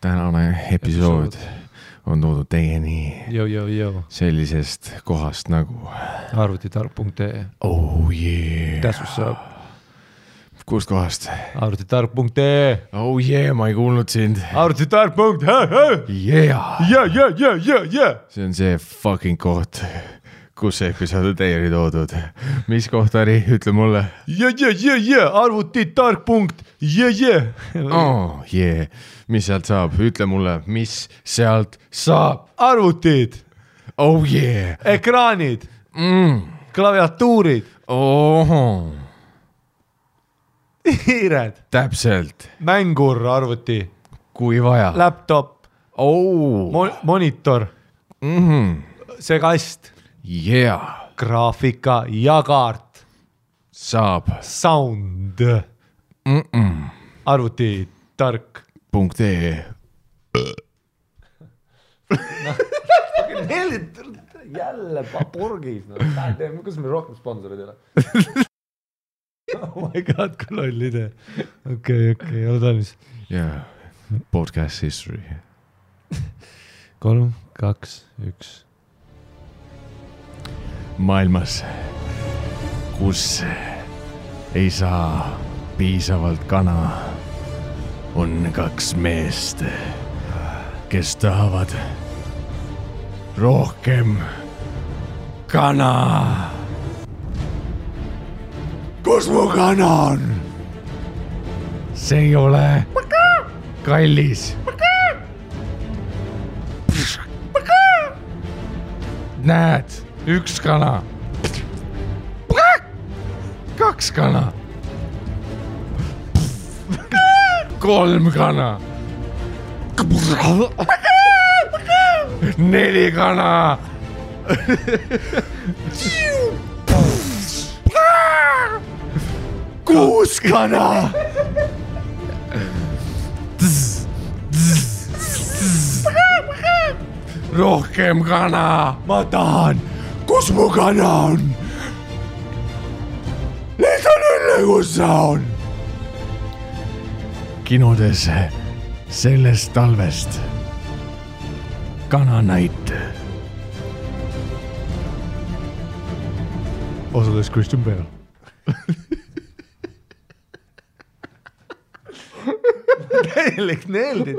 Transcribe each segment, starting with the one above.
tänane episood on toodud teieni sellisest kohast nagu arvutitark.ee. Oh yeah. That's what's up. Kust kohast? Arvutitark.ee. Oh yeah, ma ei kuulnud sind. Arvutitark.ee. Yeah. See on see fucking koht, kus see episood on teieni toodud. Mis koht oli? Ütle mulle. Arvutitark.ee. Oh yeah. Mis sealt saab? Ütle mulle, mis sealt saab? Arvutid. Oh yeah. Ekraanid. Klaviatuurid. Oh. Hiired. Täpselt. Mängur arvuti. Kui vaja. Laptop. Oh. Monitor. See kast. Yeah. Graafika ja kaart. Saab. Sound. Arvutitark.ee. Jälle purgis. Kus me rohkem sponsorid ei ole? Oh my god, kui loll idee. Okei, ole talmis. Yeah. Podcast history. 3, 2, 1. Maailmas, kus ei saa piisavalt kana, on 2 meest, kes tahavad rohkem kana. Kus mu kana on? See ei ole kallis. Näed, 1 kana. 2 kana. 3 kana. 4 kana. 6 kana. Rohkem kana. Ma tahan. Kus mu kana on? Need on õnne, kus sa on. Kinodes sellest talvest kananäit. Osades Christian Bale. Täielik neeldid.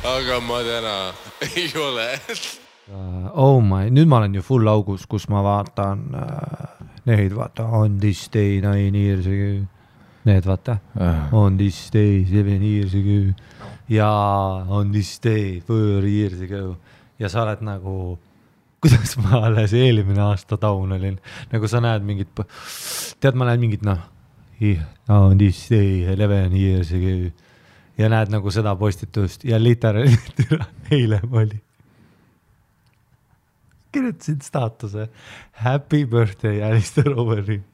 Aga ma täna ei ole. Oh my, nüüd ma olen ju full augus, kus ma vaatan neid, vaata, on this day 9 years ago. Need vaata, on this day 7 years ago. Ja on this day 4 years ago. Ja sa oled nagu, kuidas ma alles eelmine aasta taun olin. Nagu sa näed mingit, tead ma näed mingit, on this day 11 years ago. Ja näed nagu seda postitust ja literaalselt eile oli. Kirjutasid staatuse Happy birthday Alistair Overeem.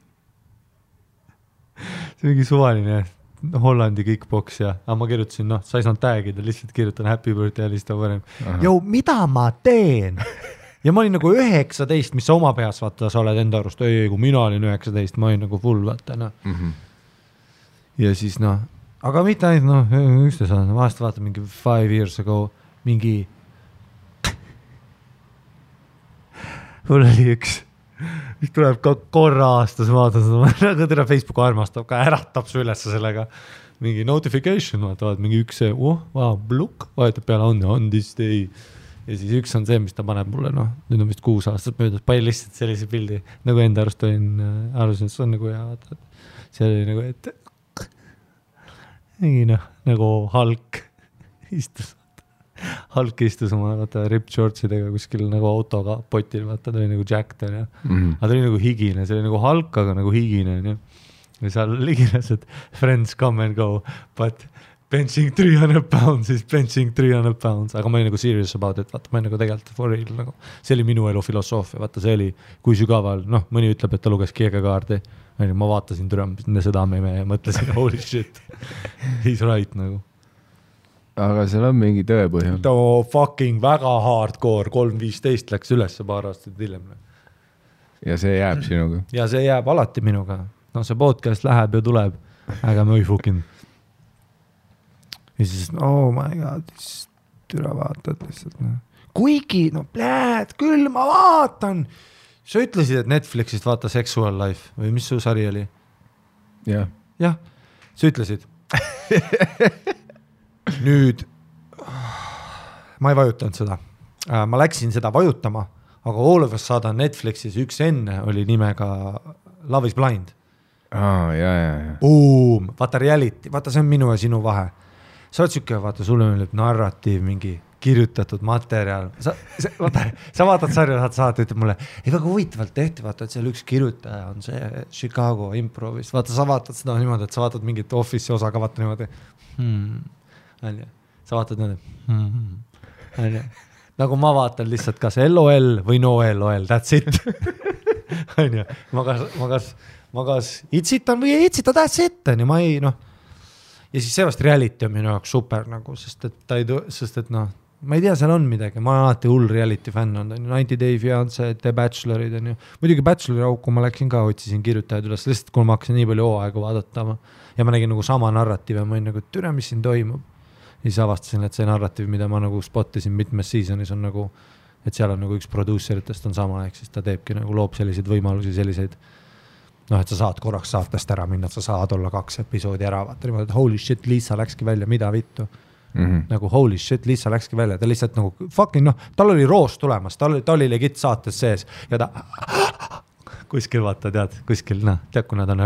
See mingi suvaline Hollandi kickbox ja ma kirjutasin, sa ei saanud tagida, lihtsalt kirjutan Happy birthday Alistair Overeem. Jou, mida ma teen? Ja ma olin nagu 19, mis sa oma peas vaata, sa oled enda arust, kui mina olin 19, ma olin nagu full vaata. Ja siis aga mitte ainult, üksteis on, vahest vaata mingi 5 years ago, mul oli üks mis tuleb ka korra aastas, vaatan seda, nagu tere Facebook armastab ka, äratab su üles sellega. Mingi notification, vaatavad mingi üks see, bluk, vahetab peale on this day. Ja siis üks on see, mis ta paneb mulle, nüüd on vist 6 aastat möödas, palju lihtsalt sellise pildi, nagu enda arust arusin, et see on nagu hea, vaata, see oli nagu, et mingi nagu Hulk istus oma ripped shortsidega kuskil nagu autoga potil, vaata, ta oli nagu jacked, aga ta oli nagu higine, see oli nagu Hulk, aga nagu higine, ja seal liginas, et friends come and go, but benching 300 pounds is benching 300 pounds, aga ma olin nagu serious about it, vaata, ma olin nagu tegelikult for real, nagu see oli minu elu filosoofia, vaata, see oli, kui sügaval, mõni ütleb, et ta luges keegakaardi, ma vaatasin seda meme ja mõtlesin, holy shit, he's right nagu. Aga seal on mingi tõepõhjal. Fucking väga hardcore, 3.15 läks üles paar aastat hiljem. Ja see jääb sinuga? Ja see jääb alati minuga. See podcast läheb ja tuleb, aga ma ei fucking. Ja siis, oh my god, türa vaatad lihtsalt. Kuigi, küll ma vaatan. Sa ütlesid, et Netflixist vaata Sexual Life või mis su sari oli? Jah. Jah, sa ütlesid. Nüüd, ma ei vajutanud seda. Ma läksin seda vajutama, aga all of us saada Netflixis üks enne oli nimega Love is Blind. Ja. Boom, vaata reality, vaata see on minu ja sinu vahe. Sa oled sükke, vaata, sulle on narratiiv, mingi kirjutatud materjal. Sa vaatad sarja, saad, ütleb mulle, ei väga huvitavalt tehti, vaata, et seal üks kirjutaja on see Chicago improvist. Vaata, sa vaatad seda niimoodi, et sa vaatad mingit office'i osa ka vaata niimoodi. Sa vaatad niimoodi. Nagu ma vaatan lihtsalt kas LOL või no LOL, that's it. Ma kas itsitan või ei itsita, that's it. Ma ei, ja siis seevast reality on minu jaoks super nagu, sest et ma ei tea, seal on midagi, ma olen alati hull reality fänn on, 90 Day Fiancé, The Bachelorid on ju, muidugi Bachelori auku ma läksin ka, otsisin kirjutajad üles, lihtsalt kui ma hakkasin nii palju hooaega vaadata ja ma nägin nagu sama narratiiv ja ma olin nagu, türa, mis siin toimub. Ja siis avastasin, et see narratiiv, mida ma nagu spottisin mitmes seasonis on nagu, et seal on nagu üks produceritest on sama, ehk siis ta teebki nagu loob selliseid võimalusi, selliseid, et sa saad korraks saatest ära minna, et sa saad olla 2 episoodi ära, vaata niimoodi, et holy shit, Liisa läkski välja, mida vittu. Nagu holy shit, Liisa läkski välja, ta lihtsalt nagu fucking tal oli roos tulemas, ta oli legit saates sees ja ta kuskil vaata, tead, kuskil, tead, kui nad on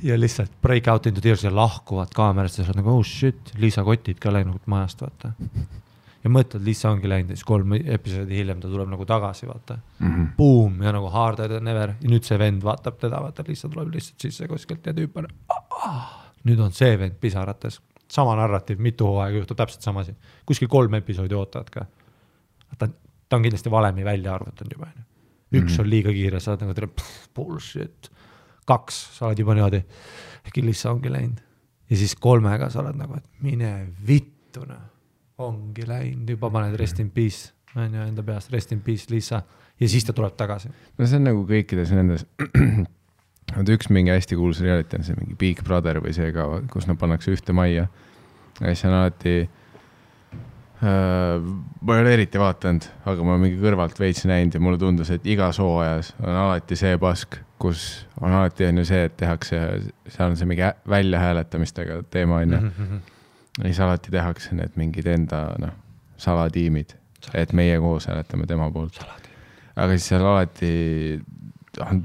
ja lihtsalt break out into tears ja lahkuvad kaamerast ja sa oled nagu, oh shit, Liisa kotid ka läinud majast, vaata. Ja mõtled, Liisa ongi läinud ja siis 3 episoodi hiljem ta tuleb nagu tagasi, vaata. Boom, ja nagu harder than ever. Ja nüüd see vend vaatab teda, vaata, Liisa tuleb lihtsalt sisse kuskilt ja tüüp on. Nüüd on see vend pisarates. Sama narratiiv, mitu hooaega juhtub täpselt samasi. Kuskil 3 episoodi ootavad ka. Ta on kindlasti valemi välja arvutanud juba. Üks on liiga kiire, sa oled nagu bullshit. 2, sa oled juba niimoodi, äkki Liisa ongi läinud. Ja siis 3-ga sa oled nagu, et mine vittuna. Ongi läinud, juba paned rest in peace. Enda peast rest in peace, Liisa. Ja siis ta tuleb tagasi. No see on nagu kõikides nendes... üks mingi hästi kuulus reality on see mingi Big Brother või see ka, kus nad pannakse ühte majja. Ja siis on alati, ma ei ole eriti vaatanud, aga ma mingi kõrvalt veits näinud ja mulle tundus, et igas hooajas on alati see pask, kus on alati on ju see, et tehakse, seal on see mingi välja hääletamistega teema on ju. Ja siis alati tehakse need mingid enda salatiimid, et meie koos hääletame tema poolt. Aga siis seal alati on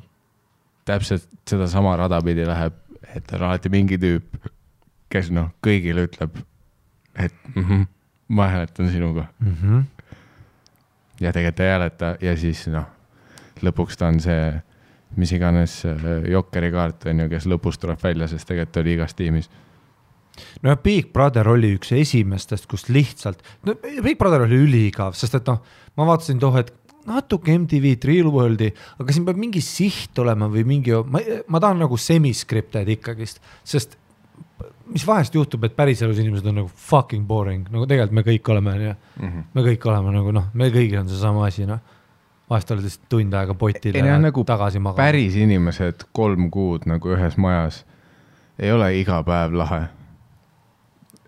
täpselt seda sama radapidi läheb, et on alati mingi tüüp, kes kõigile ütleb, et ma hääletan sinuga. Ja tegelikult ei hääleta ja siis lõpuks ta on see, mis iganes jokkeri kaart on ju, kes lõpus tuleb välja, sest tegelikult oli igas tiimis. No ja Big Brother oli üks esimestest, kus lihtsalt, Big Brother oli üliigav, sest et ma vaatasin et natuke MTV Real Worldi, aga siin peab mingi siht olema või mingi, ma tahan nagu semi-scripted ikkagist, sest mis vahest juhtub, et päriselus inimesed on nagu fucking boring, nagu tegelikult me kõik oleme, me kõik oleme nagu, me kõigil on see sama asi, vahest oled lihtsalt tund aega potil ja nagu tagasi magama. Päris inimesed 3 kuud nagu ühes majas ei ole iga päev lahe.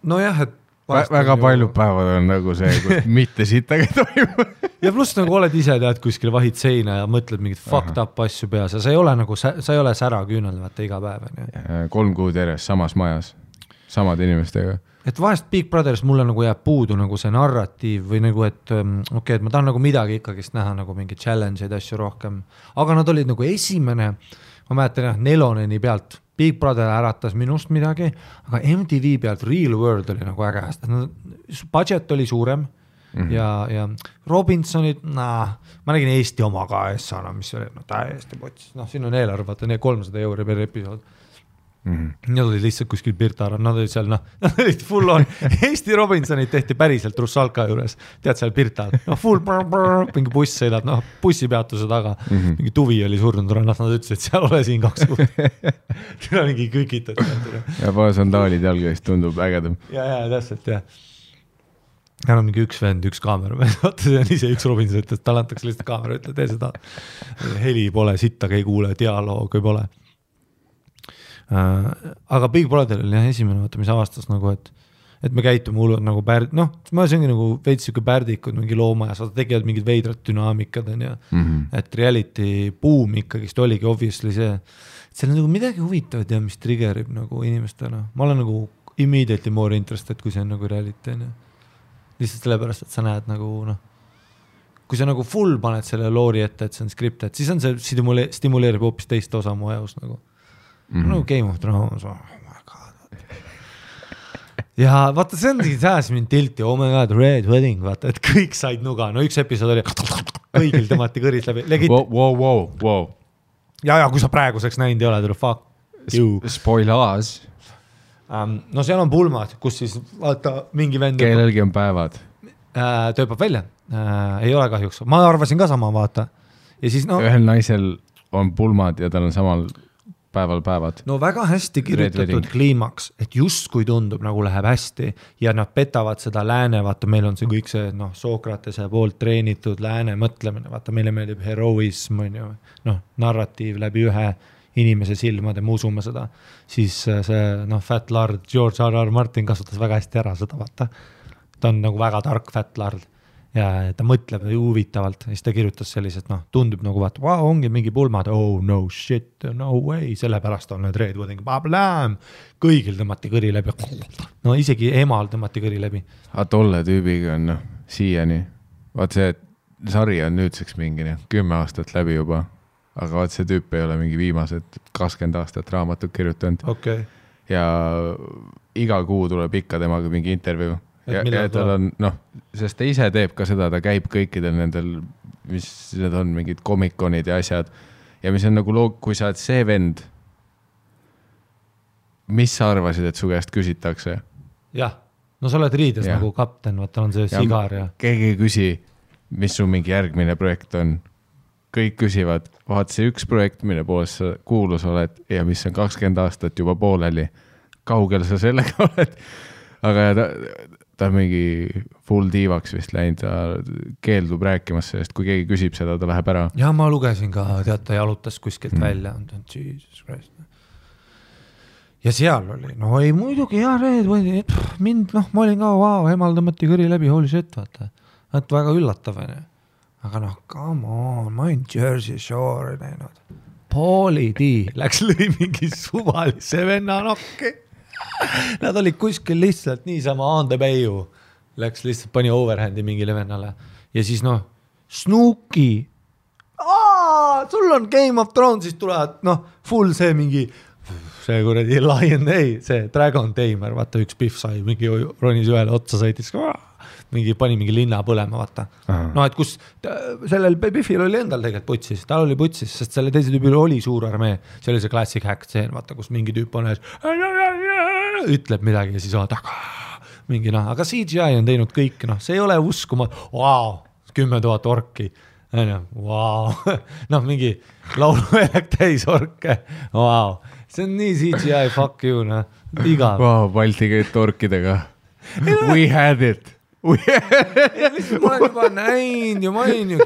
Nojah, et väga paljud päevad on nagu see, kus mitte sittagi toimub. Ja pluss nagu oled ise tead kuskil vahid seina ja mõtled mingit fucked up asju peas ja sa ei ole nagu, sa ei ole sära küünel vaata iga päev. 3 kuud järjest samas majas, samad inimestega. Et vahest Big Brothers mulle nagu jääb puudu nagu see narratiiv või nagu, et okei, et ma tahan nagu midagi ikkagist näha nagu mingi challenge'id asju rohkem, aga nad olid nagu esimene, ma mäletan jah, Neloneni pealt Big Brother äratas minust midagi, aga MTV pealt Real World oli nagu äge, budget oli suurem ja Robinsonid, ma nägin Eesti oma ka S-ana, mis oli täiesti potsis, siin on eelarve, vaata 300 euri per episood. Nad olid lihtsalt kuskil Pirtarad, nad olid seal, nad olid full on, Eesti Robinsonid tehti päriselt Russalka juures, tead seal Pirtal, full mingi buss sõidab, bussipeatuse taga, mingi tuvi oli surnud rannas, nad ütlesid, et seal ole siin 2 kuud. Tule mingi kükitad. Ja paar sandaalid jalgavist tundub ägedam. Ja, täpselt, jah. Ja on mingi üks vend, üks kaamera, vaata see on ise üks Robinson, et tal antakse lihtsalt kaamera, ütle, tee seda. Heli pole, sittagi ei kuule, dialoogi pole. Aga Big Brother oli esimene, vaata, mis avastas nagu, et me käitume hullud nagu ma see ongi nagu veits siuke pärdikud mingi loomajas, vaata tegivad mingid veidrad dünaamikad on ja et reality boom ikkagist oligi obviously see, et seal on nagu midagi huvitavat ja mis triggerib nagu inimestena. Ma olen nagu immediately more interested, kui see on nagu reality on ja lihtsalt sellepärast, et sa näed nagu kui sa nagu full paned selle loori ette, et see on scripted, siis on see stimuleerib hoopis teist osa mu ajus nagu no Game of Thrones, oh my god. Ja vaata, see on sääs mind tilti, oh my god, Red Wedding, vaata, et kõik said nuga, üks episood oli kõigil tõmmati kõris läbi. Wow. Ja kui sa praeguseks näinud ei ole, fuck you. Spoilers. No seal on pulmad, kus siis vaata mingi vend kellelgi on päevad. Tööpab välja, ei ole kahjuks, ma arvasin ka sama, vaata. Ja siis ühel naisel on pulmad ja tal on samal päevad. No väga hästi kirjutatud kliimaks, et just kui tundub nagu läheb hästi ja nad petavad seda lääne, vaata meil on see kõik see Sokratese poolt treenitud lääne mõtlemine, vaata meile meeldib heroism, narratiiv läbi ühe inimese silmade, me usume seda, siis see Fat Lard, George R.R. Martin kasutas väga hästi ära seda, vaata. Ta on nagu väga tark Fat Lard ja ta mõtleb huvitavalt ja siis ta kirjutas sellised, tundub nagu vaata, wow, ongi mingi pulmad, oh no shit, no way, sellepärast on need Red Wedding, kõigil tõmmati kõri läbi, no isegi emal tõmmati kõri läbi. Aga tolle tüübiga on siiani, vaat see sari on nüüdseks mingi 10 aastat läbi juba, aga vaat see tüüp ei ole mingi viimased 20 aastat raamatut kirjutanud. Okay. Ja iga kuu tuleb ikka temaga mingi intervjuu. Ja tal on, sest ta ise teeb ka seda, ta käib kõikidel nendel, mis need on, mingid komikonid ja asjad. Ja mis on nagu kui sa oled see vend, mis sa arvasid, et su käest küsitakse? Jah, no sa oled riides nagu kapten, vaata on see sigar ja... Keegi ei küsi, mis su mingi järgmine projekt on. Kõik küsivad, vaat see üks projekt, mille poolest sa kuulus oled ja mis on 20 aastat juba pooleli. Kaugel sa sellega oled? Aga ta mingi full diivaks vist läinud, ta keeldub rääkimas sellest, kui keegi küsib seda, ta läheb ära. Ja ma lugesin ka, tead, ta jalutas kuskilt välja, Jesus Christ. Ja seal oli, ei muidugi, mind, ma olin ka, wow, emal tõmmati kõri läbi, holy shit, vaata. Et väga üllatav, aga come on, ma olen Jersey Shore näinud. Pauli D läks lõi mingi suvalise venna nokki. Nad olid kuskil lihtsalt niisama on the bayou. Läks lihtsalt pani overhandi mingile vennale. Ja siis Snooki. Sul on Game of Thrones, siis tulevad, full see mingi, see kuradi Lion, see Dragon Tamer, vaata üks Biff sai, mingi ronis ühele otsa sõitis, mingi pani mingi linna põlema, vaata. Et kus sellel Biffil oli endal tegelikult putsis, tal oli putsis, sest selle teise tüübil oli suur armee, see oli see classic hack scene, vaata, kus mingi tüüp on ütleb midagi ja siis mingi aga CGI on teinud kõik, see ei ole uskuma, wow, 10 000 orki, wow, mingi lauluväljak täis orke, wow, see on nii CGI, fuck you, igav. Wow, Balti käid orkidega. We had it. ma olen juba näinud ja ma olin ju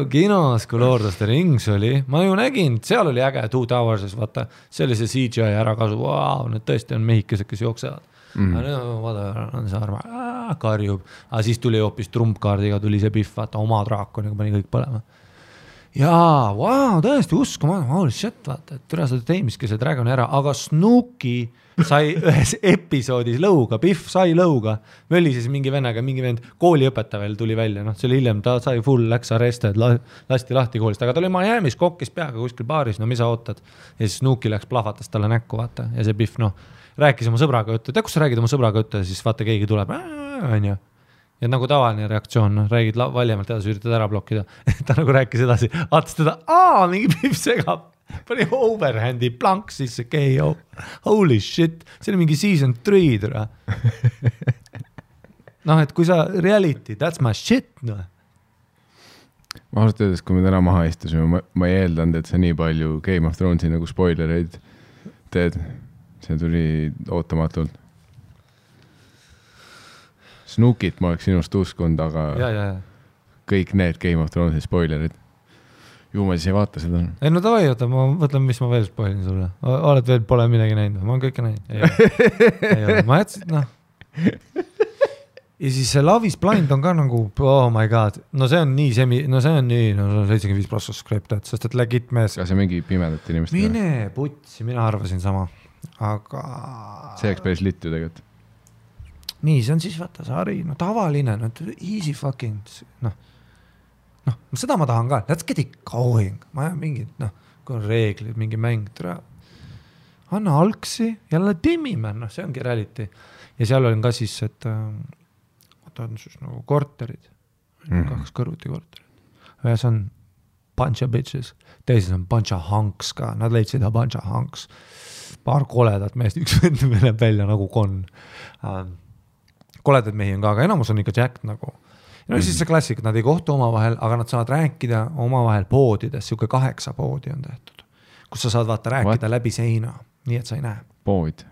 kinos, kui Lord of the Rings oli, ma ju nägin, seal oli äge Two Towerses, vaata, see oli see CGI ärakasu, wow, need tõesti on mehikesed, kes jooksevad. Vaata, on see arma, karjub, aga siis tuli hoopis trumpkaardiga, tuli see Biff, vaata, oma draakoniga pani kõik põlema. Jaa, wow, tõesti uskuma, holy shit, vaata, et türa seda teemiski see Dragon ära, aga Snooki sai ühes episoodis lõuga, Biff sai lõuga, möli siis mingi vennaga, mingi vend kooliõpetaja veel tuli välja, noh, see oli hiljem, ta sai full, läks arrested, lasti lahti koolist, aga ta oli Miami's kokkis peaga kuskil baaris, no mis sa ootad, ja siis Snooki läks plahvatas talle näkku, vaata, ja see Biff, noh, rääkis oma sõbraga juttu, kus sa räägid oma sõbraga juttu ja siis vaata, keegi tuleb, on ju. Ja nagu tavaline reaktsioon, no, räägid valjemalt edasi, üritad ära blokkida. Ta nagu rääkis edasi, vaatas teda, mingi Biff segab, pani overhandi plank sisse, KO. Holy shit, see oli mingi season 3, tere. Noh, et kui sa reality, that's my shit, noh. Ma ausalt öeldes, kui me täna maha istusime, ma ei eeldanud, et sa nii palju Game of Thronesi nagu spoilereid teed. See tuli ootamatult. Snookit ma oleks sinust uskund, aga ja. kõik need Game of Thronesi spoilerid. Ju ma siis ei vaata seda. Ei, no tavai, oota, ma mõtlen, mis ma veel spoilin sulle. Oled veel pole midagi näinud, ma olen kõike näinud. Ei ole. Ma jätsin, noh. Ja siis see Love is Blind on ka nagu, oh my god, no see on nii 75+ subscribed, sest et legit mees. Ka see mingi pimedat inimest. Mine putsi, mina arvasin sama, aga... See oleks päris litt ju tegelikult. Nii, see on siis vaata sari, no tavaline, no easy fucking, noh, seda ma tahan ka, let's get it going, ma jään mingid, noh, kui on reeglid, mingi mäng, anna algsi, jälle timmime, noh, see ongi reality. Ja seal on ka siis, et on siis nagu korterid, 2 kõrvuti korterid. Ühes on bunch of bitches, teises on bunch of hunks ka, nad leidsid bunch of hunks, paar koledat meest, üks vend läheb välja nagu kon. Koledad mehi on ka, aga enamus on ikka Jack nagu. No siis see klassik, nad ei kohtu omavahel, aga nad saavad rääkida omavahel poodides, siuke 8 poodi on tehtud, kus sa saad vaata rääkida läbi seina, nii et sa ei näe. Pood.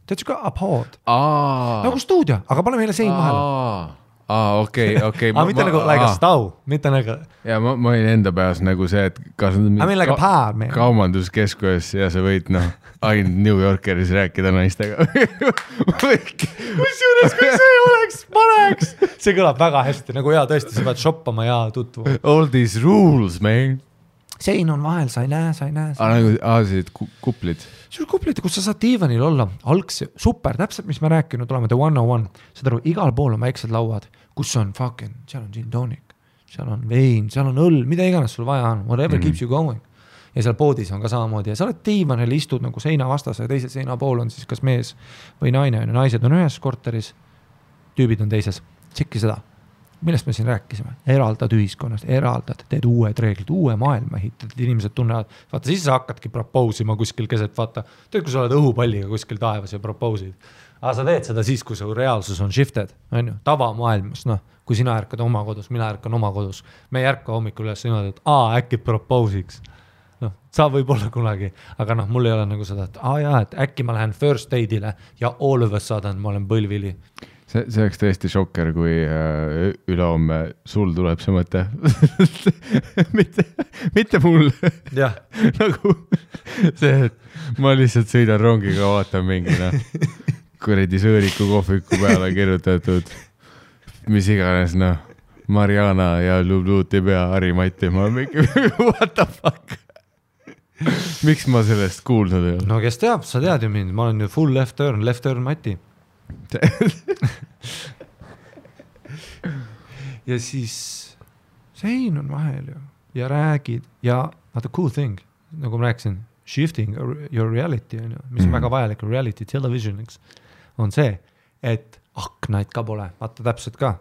Tead ka a pod? Nagu stuudio, aga pane meile sein vahele. Okei. Mitte nagu like a stau, mitte nagu... Ja ma olin enda peas nagu see, et kas like kaubanduskeskuses ja sa võid, noh, ainult New Yorkeris rääkida naistega. Kusjuures, kui see oleks, paneks. See kõlab väga hästi, nagu tõesti, sa pead shoppama ja tutvu. All these rules, man. Sein on vahel, sa ei näe. Sellised kuplid. See on kuplid, kus sa saad diivanil olla. Algsi, super, täpselt, mis me rääkinud oleme, The 101. Seda aru, igal pool on väiksed lauad, kus on fucking, seal on gin tonic, seal on vein, seal on õll, mida iganes sul vaja on, whatever keeps you going. Ja seal poodis on ka samamoodi. Ja sa oled diivanil, istud nagu seina vastas ja teisel seina pool on siis kas mees või naine. Naised on ühes korteris, tüübid on teises. Tšekki seda. Millest me siin rääkisime? Eraldad ühiskonnast, teed uued reeglid, uue maailma ehitad, inimesed tunnevad, vaata siis sa hakkadki propoosima kuskil keset, vaata, teed, kui sa oled õhupalliga kuskil taevas ja propoosid. Aga sa teed seda siis, kui su reaalsus on shifted, on ju, tavamaailmas, noh, kui sina ärkad oma kodus, mina ärkan oma kodus, me ei ärka hommikul üles niimoodi, et äkki propoosiks. Noh, sa võib olla kunagi, aga noh, mul ei ole nagu seda, et äkki ma lähen first date'ile ja all of a sudden ma olen põlvili. See oleks tõesti šokker, kui ülehomme sul tuleb see mõte. mitte mul. Jah. Nagu see, et ma lihtsalt sõidan rongiga, vaatan mingina kuredi sõõriku kohviku peale kirjutatud, mis iganes, noh, Mariana ja Lubluuti pea Harimati, ma mingi, what the fuck? Miks ma sellest kuulnud ei ole? No kes teab, sa tead ju mind, ma olen ju full left turn Mati. Ja siis sein on vahel ju ja räägid ja vaata cool thing, nagu ma rääkisin, shifting your reality, mis on väga vajalik reality televisioniks, on see, et aknaid ka pole, vaata täpselt ka.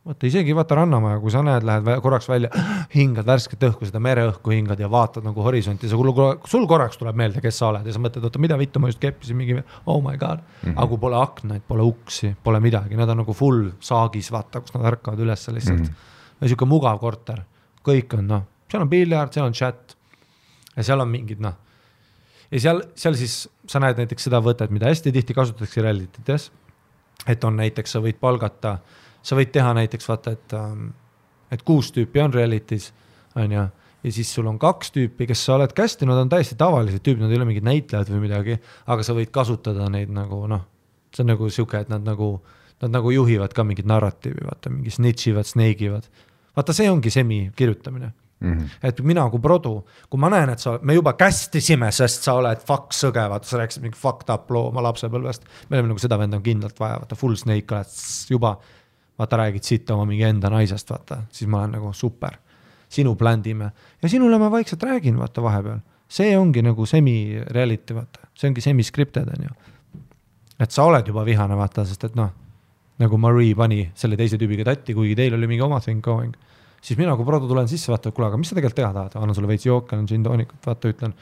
Vaata isegi vaata rannamaja, kui sa näed, lähed korraks välja, hingad värsket õhku, seda mereõhku hingad ja vaatad nagu horisonti, sul korraks tuleb meelde, kes sa oled ja sa mõtled, oota, mida vittu ma just keppisin mingi, oh my god, aga kui pole aknaid, pole uksi, pole midagi, nad on nagu full saagis, vaata, kus nad ärkavad üles lihtsalt. Ja siuke mugav korter, kõik on, noh, seal on piljard, seal on chat ja seal on mingid, noh, ja seal siis sa näed näiteks seda võtet, mida hästi tihti kasutatakse realitytes, et on näiteks, sa võid palgata, sa võid teha näiteks vaata, et 6 tüüpi on realities, on ju, ja siis sul on 2 tüüpi, kes sa oled kästi, nad on täiesti tavalised tüüpid, nad ei ole mingid näitlejad või midagi, aga sa võid kasutada neid nagu see on nagu siuke, et nad nagu juhivad ka mingit narratiivi, vaata, mingi snitchivad, sneigivad. Vaata, see ongi semi kirjutamine. Et mina kui produ, kui ma näen, et me juba kästisime, sest sa oled fuck sõge, vaata, sa rääkisid mingi fucked up loo oma lapsepõlvest, me oleme nagu seda venda on kindlalt vaja, vaata, full snake oled juba, vaata, räägid siit oma mingi enda naisest, vaata, siis ma olen nagu super, sinu bländime ja sinule ma vaikselt räägin, vaata, vahepeal, see ongi nagu semi-reality, vaata, see ongi semi-scripted, on ju, et sa oled juba vihane, vaata, sest et nagu Marie pani selle teise tüübiga tatti, kuigi teil oli mingi oma thing going, siis mina kui produ tulen sisse, vaata, kuule, aga mis sa tegelikult teha tahad? Annan sulle veits jooke, annan gin-toonikut, vaata, ütlen,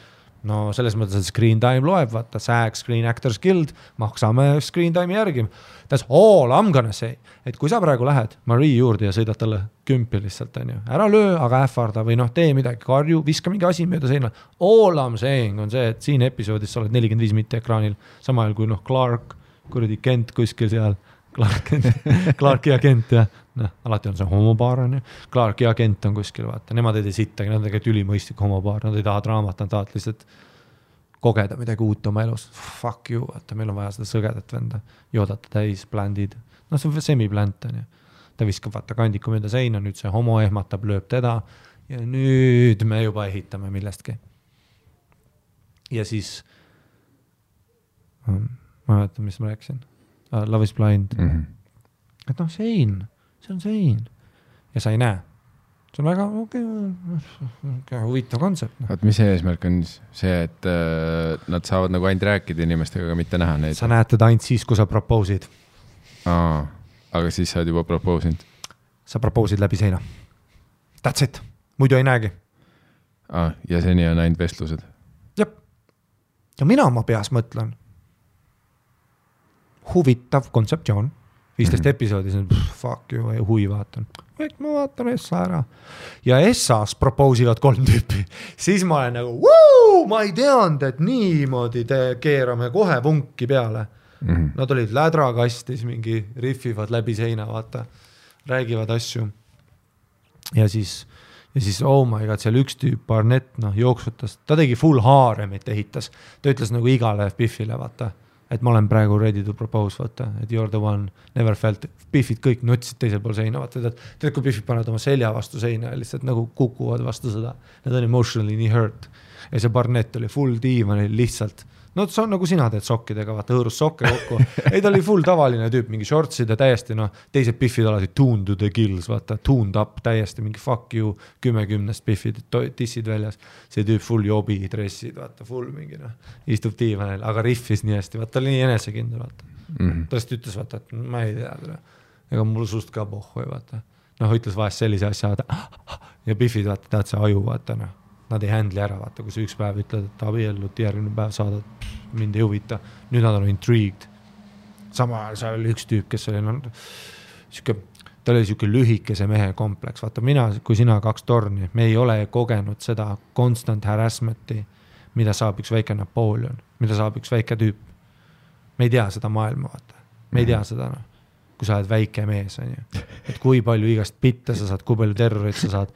no selles mõttes, et screen time loeb, vaata, SAG, Screen Actors Guild, maksame screen time'i järgi. That's all I'm gonna say. Et kui sa praegu lähed Marie juurde ja sõidad talle kümpi lihtsalt, on ju, ära löö, aga ähvarda või tee midagi, karju, viska mingi asi mööda seina. All I'm saying on see, et siin episoodis sa oled 45 mitte ekraanil, sama ajal kui Clark, kuradi Kent kuskil seal, Clark ja Kent ja alati on see homopaar, on ju. Clark ja Kent on kuskil, vaata, nemad ei tee sittagi, nad on tegelikult ülimõistlik homopaar, nad ei taha draamat, nad tahavad lihtsalt kogeda midagi uut oma elus. Fuck you, vaata, meil on vaja seda sõgedat venda, joodata täis, bländid. See on semi-bländ, on ju. Ta viskab vaata kandiku mööda seina, nüüd see homo ehmatab, lööb teda ja nüüd me juba ehitame millestki. Ja siis ma mäletan, mis ma rääkisin. Love is Blind. Et sein, see on sein. Ja sa ei näe. See on väga huvitav kontsept. Vaat mis eesmärk on see, et nad saavad nagu ainult rääkida inimestega, aga mitte näha neid? Sa näed teda ainult siis, kui sa proposid. Aga siis sa oled juba proposinud? Sa proposid läbi seina. That's it. Muidu ei näegi. Ja seni on ainult vestlused? Jep. Ja mina oma peas mõtlen. Huvitav kontseptsioon. 15 episoodis on fuck you, hui vaatan. Ma vaatan Essa ära. Ja Essas proposivad 3 tüüpi. Siis ma olen nagu, ma ei teanud, et niimoodi keerame kohe vunki peale. Nad olid lädrakastis, mingi riffivad läbi seina, vaata. Räägivad asju. Ja siis, oh my god, seal üks tüüp, Barnett, jooksutas. Ta tegi full haaremit ehitas. Ta ütles nagu igale Biffile, vaata. Et ma olen praegu ready to propose, vaata, et you're the one, never felt, Biffid kõik nutsid teisel pool seina, vaata, tead, kui Biffid panevad oma selja vastu seina ja lihtsalt nagu kukuvad vastu seda, need on emotionally nii hurt. Ja see Barnett oli full diivan, lihtsalt, see on nagu sina teed sokkidega, vaata, hõõrus sokke kokku. Ei, ta oli full tavaline tüüp, mingi shortsid ja täiesti, teised Biffid alati tuned to the gills, vaata, tuned up täiesti, mingi fuck you, 10 Biffid, tissid väljas. See tüüp full jobi, dressid, vaata, full mingi, istub diivanil, aga riffis nii hästi, vaata, oli nii enesekindel, vaata. Ta lihtsalt ütles, vaata, et ma ei tea, ega mul sust ka pohhu, vaata. Ütles vahest sellise asja, ja Biffid, vaata, tead see aju, vaata, nad ei handli ära, vaata, kui sa üks päev ütled, et abiellud, järgmine päev saadad, mind ei huvita. Nüüd nad on intrigued. Sama ajal seal oli üks tüüp, kes oli, ta oli siuke lühikese mehe kompleks. Vaata, kui sina 2 torni, me ei ole kogenud seda constant harassmenti, mida saab üks väike Napoleon, mida saab üks väike tüüp. Me ei tea seda maailma, vaata. Me ei tea seda, kui sa oled väike mees, on ju. Et kui palju igast pitte sa saad, kui palju terrorit sa saad.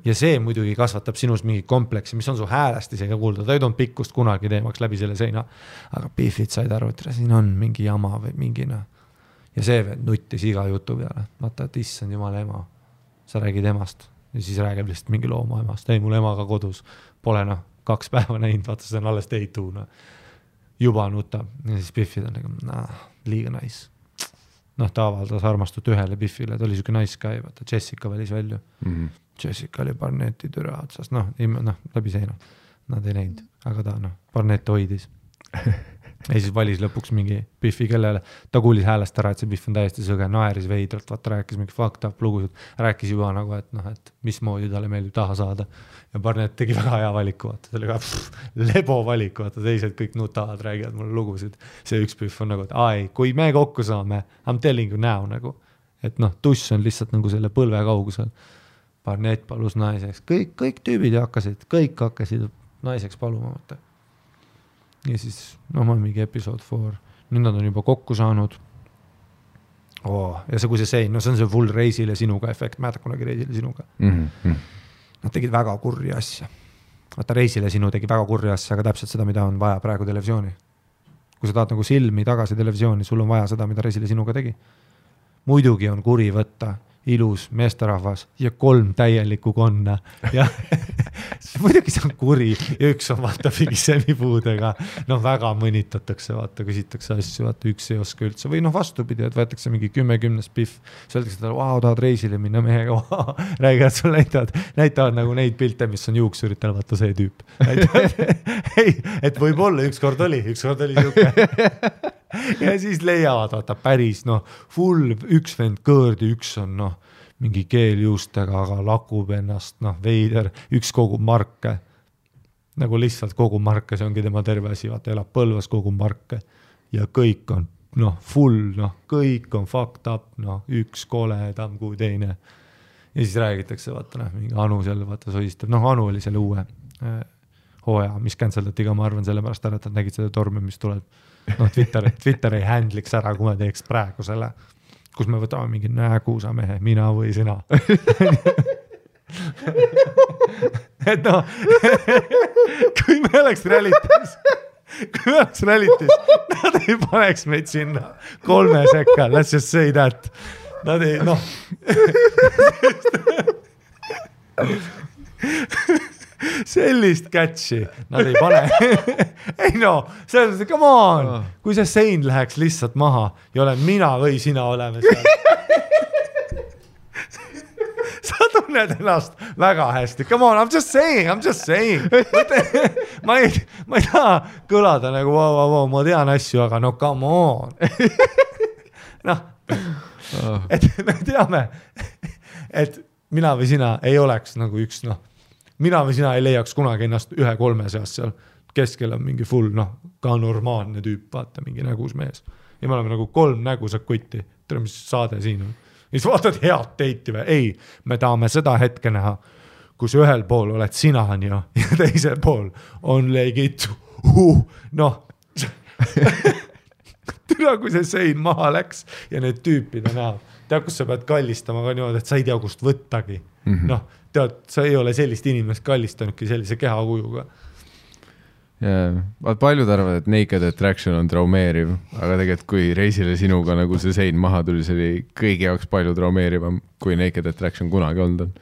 Ja see muidugi kasvatab sinus mingi kompleksi, mis on su häälest isegi kuulda. Ta ei toonud pikkust kunagi teemaks läbi selle seina. Aga Biffid said aru, et siin on mingi jama või mingina. Ja see veel nuttis iga jutu peale. Vaata, et issand jumala ema. Sa räägid emast. Ja siis räägib lihtsalt mingi looma emast. Ei, mul emaga kodus. Pole 2 päeva näinud, vaata, see on alles teitu. Juba nutab. Ja siis Biffid on nagu, liiga nice. Ta avaldas armastut ühele Biffile, ta oli siuke nice guy, vaata, Jessica välis välja. Jessica oli Barnetti türa otsas, läbi seina. Nad ei näinud, aga ta, Barnett hoidis. Ja siis valis lõpuks mingi Biffi, kellele ta kuulis häälest ära, et see Biff on täiesti sõge, naeris veidralt, vaata, rääkis mingi fucked up lugusid, rääkis juba nagu, et mismoodi talle meeldib taha saada. Ja Barnett tegi väga hea valiku, vaata, ta oli ka lebo valiku, vaata, teised kõik nutavad, räägivad mulle lugusid. See üks Biff on nagu, et kui me kokku saame, I'm telling you now, nagu, et tuss on lihtsalt nagu selle põlve kaugusel. Barnett palus naiseks, kõik tüübid kõik hakkasid naiseks paluma, vaata. Ja siis, ma olen mingi episode 4. Nüüd nad on juba kokku saanud. Ja see, kui see sein, no see on see full Reisile sinuga efekt, mäletad kunagi Reisile sinuga. Nad tegid väga kurri asja. Vaata Reisile sinu tegi väga kurri asja, aga täpselt seda, mida on vaja praegu televisiooni. Kui sa tahad nagu silmi tagasi televisiooni, sul on vaja seda, mida Reisile sinuga tegi. Muidugi on kuri võtta ilus meesterahvas ja 3 täielikku konna ja muidugi see on kuri ja üks on vaata mingi semipuudega, väga mõnitatakse, vaata, küsitakse asju, vaata üks ei oska üldse või vastupidi, et võetakse mingi 10 spiff, öeldakse talle, tahad Reisile minna mehega, räägivad sul näitavad nagu neid pilte, mis on juuksuritel, vaata see tüüp. Ei, et võib-olla ükskord oli siuke. Ja siis leiavad, vaata päris, full üks vend kõõrdi, üks on, mingi keeljuustega, aga lakub ennast, veider, üks kogub marke. Nagu lihtsalt kogub marke, see ongi tema terve asi, vaata, elab Põlvas, kogub marke. Ja kõik on, full, kõik on fucked up, üks koledam kui teine. Ja siis räägitakse, vaata, mingi Anu seal, vaata, soistab. Anu oli selle uue hooja, mis canceldati ka, ma arvan, selle pärast ära, et nad nägid seda tormi, mis tuleb. Twitter ei handliks ära, kui me teeks praegu selle, kus me võtame mingi nägusa mehe, mina või sina. Et kui me oleks realitis, nad ei paneks meid sinna 3 sekka, let's just say that. Nad ei, sellist catchi nad ei pane. Ei selles come on, kui see sein läheks lihtsalt maha ja olen mina või sina oleme seal. Sa tunned ennast väga hästi. Come on, I'm just saying. Ma ei taha kõlada nagu wow, ma tean asju, aga come on. Et me teame, et mina või sina ei oleks nagu üks, mina või sina ei leiaks kunagi ennast 1-3 seas seal. Keskel on mingi full, ka normaalne tüüp, vaata, mingi nägus mees. Ja me oleme nagu 3 nägusad kutti. Tere, mis saade siin on. Ja siis vaatad head teiti või? Ei, me tahame seda hetke näha, kus ühel pool oled sina ja teisel pool on legit. Türa, kui see sein maha läks ja need tüüpid on näha. Tead, kus sa pead kallistama ka niimoodi, et sa ei tea, kust võttagi. Tead, sa ei ole sellist inimest kallistanudki sellise kehakujuga. Paljud arvad, et Naked Attraction on traumeeriv, aga tegelikult kui Reisile sinuga nagu see sein maha tuli, see oli kõigi jaoks palju traumeerivam, kui Naked Attraction kunagi olnud on.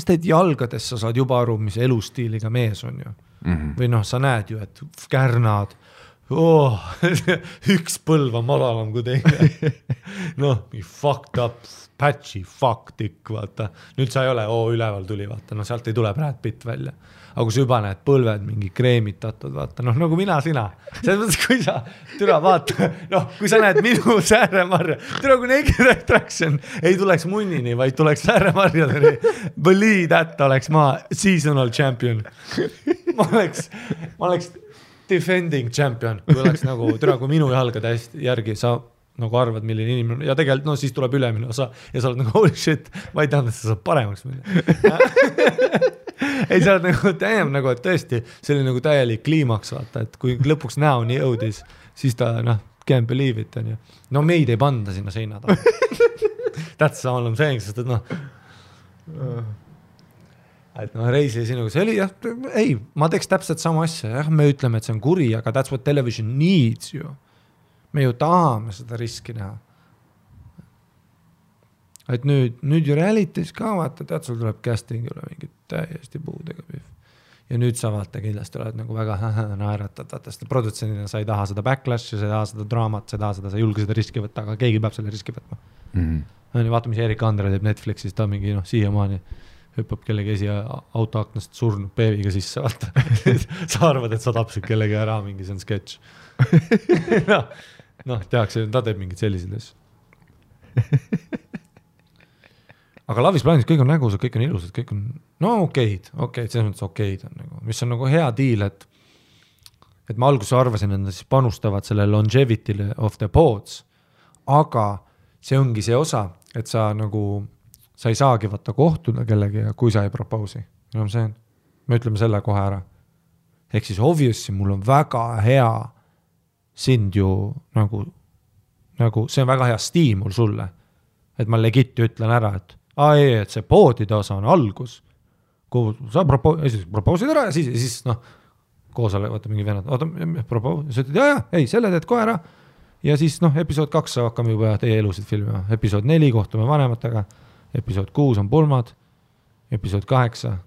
Sest jalgades sa saad juba aru, mis elustiiliga mees on ju. Või sa näed ju, et kärnad, üks põlv on madalam kui teine. Fucked up, patchy, fucked ikk, vaata. Nüüd sa ei ole, üleval tuli, vaata. Sealt ei tule Brad Pitt välja. Aga kui sa juba näed põlved mingi kreemitatud, vaata. Nagu mina, sina. Selles mõttes, kui sa türa vaata, kui sa näed minu Sääremarja, türa kui Naked Attraction ei tuleks munnini, vaid tuleks Sääremarjadeni. Believe that oleks ma seasonal champion. Ma oleks defending champion, kui oleks nagu, kui minu jalgade järgi sa nagu arvad, milline inimene, ja tegelikult siis tuleb ülemine osa ja sa oled nagu holy shit, ma ei teadnud, et sa saad paremaks minna. Ei, sa oled nagu, et tõesti, see oli nagu täielik kliimaks, vaata, et kui lõpuks näoni jõudis, siis ta, can't believe it, on ju. Meid ei panda sinna seina taha. That's all I'm saying, sest et Reisile sinuga, see oli ei, ma teeks täpselt sama asja, me ütleme, et see on kuri, aga that's what television needs ju. Me ju tahame seda riski näha. Et nüüd ju realities ka vaata, tead, sul tuleb casting üle mingit täiesti puudega püh. Ja nüüd sa vaata kindlasti oled nagu väga naeratad, vaata, sest produtsendina sa ei taha seda backlash, sa ei taha seda draamat, sa ei julge seda riski võtta, aga keegi peab selle riski võtma. Vaata, mis Erik Andre teeb Netflixis, ta mingi siiamaani hüppab kellegi autoaknast surnud peeviga sisse, vaata. Sa arvad, et sa tapsid kellegi ära, mingi see on sketš. Tehakse, ta teeb mingid sellised asju. Aga Love is Blindis kõik on nägusad, kõik on ilusad, kõik on okeid, selles mõttes okeid on nagu, mis on nagu hea deal, et ma alguses arvasin, et nad siis panustavad selle longevity'le of the pods, aga see ongi see osa, et sa ei saagi võtta kohtuda kellegi, kui sa ei propousi. Me ütleme selle kohe ära. Ehk siis obviously mul on väga hea sind ju nagu nagu see on väga hea stiimul sulle, et ma legit ütlen ära, et et see poodide osa on algus, kuhu sa propoosid ära ja siis noh, koosale, vaata mingi vennad, sa ütled, ei, selle teed kohe ära ja siis noh, episood 2 hakkame juba teie elusid filmima, episood 4 kohtume vanematega, episood 6 on pulmad, episood 8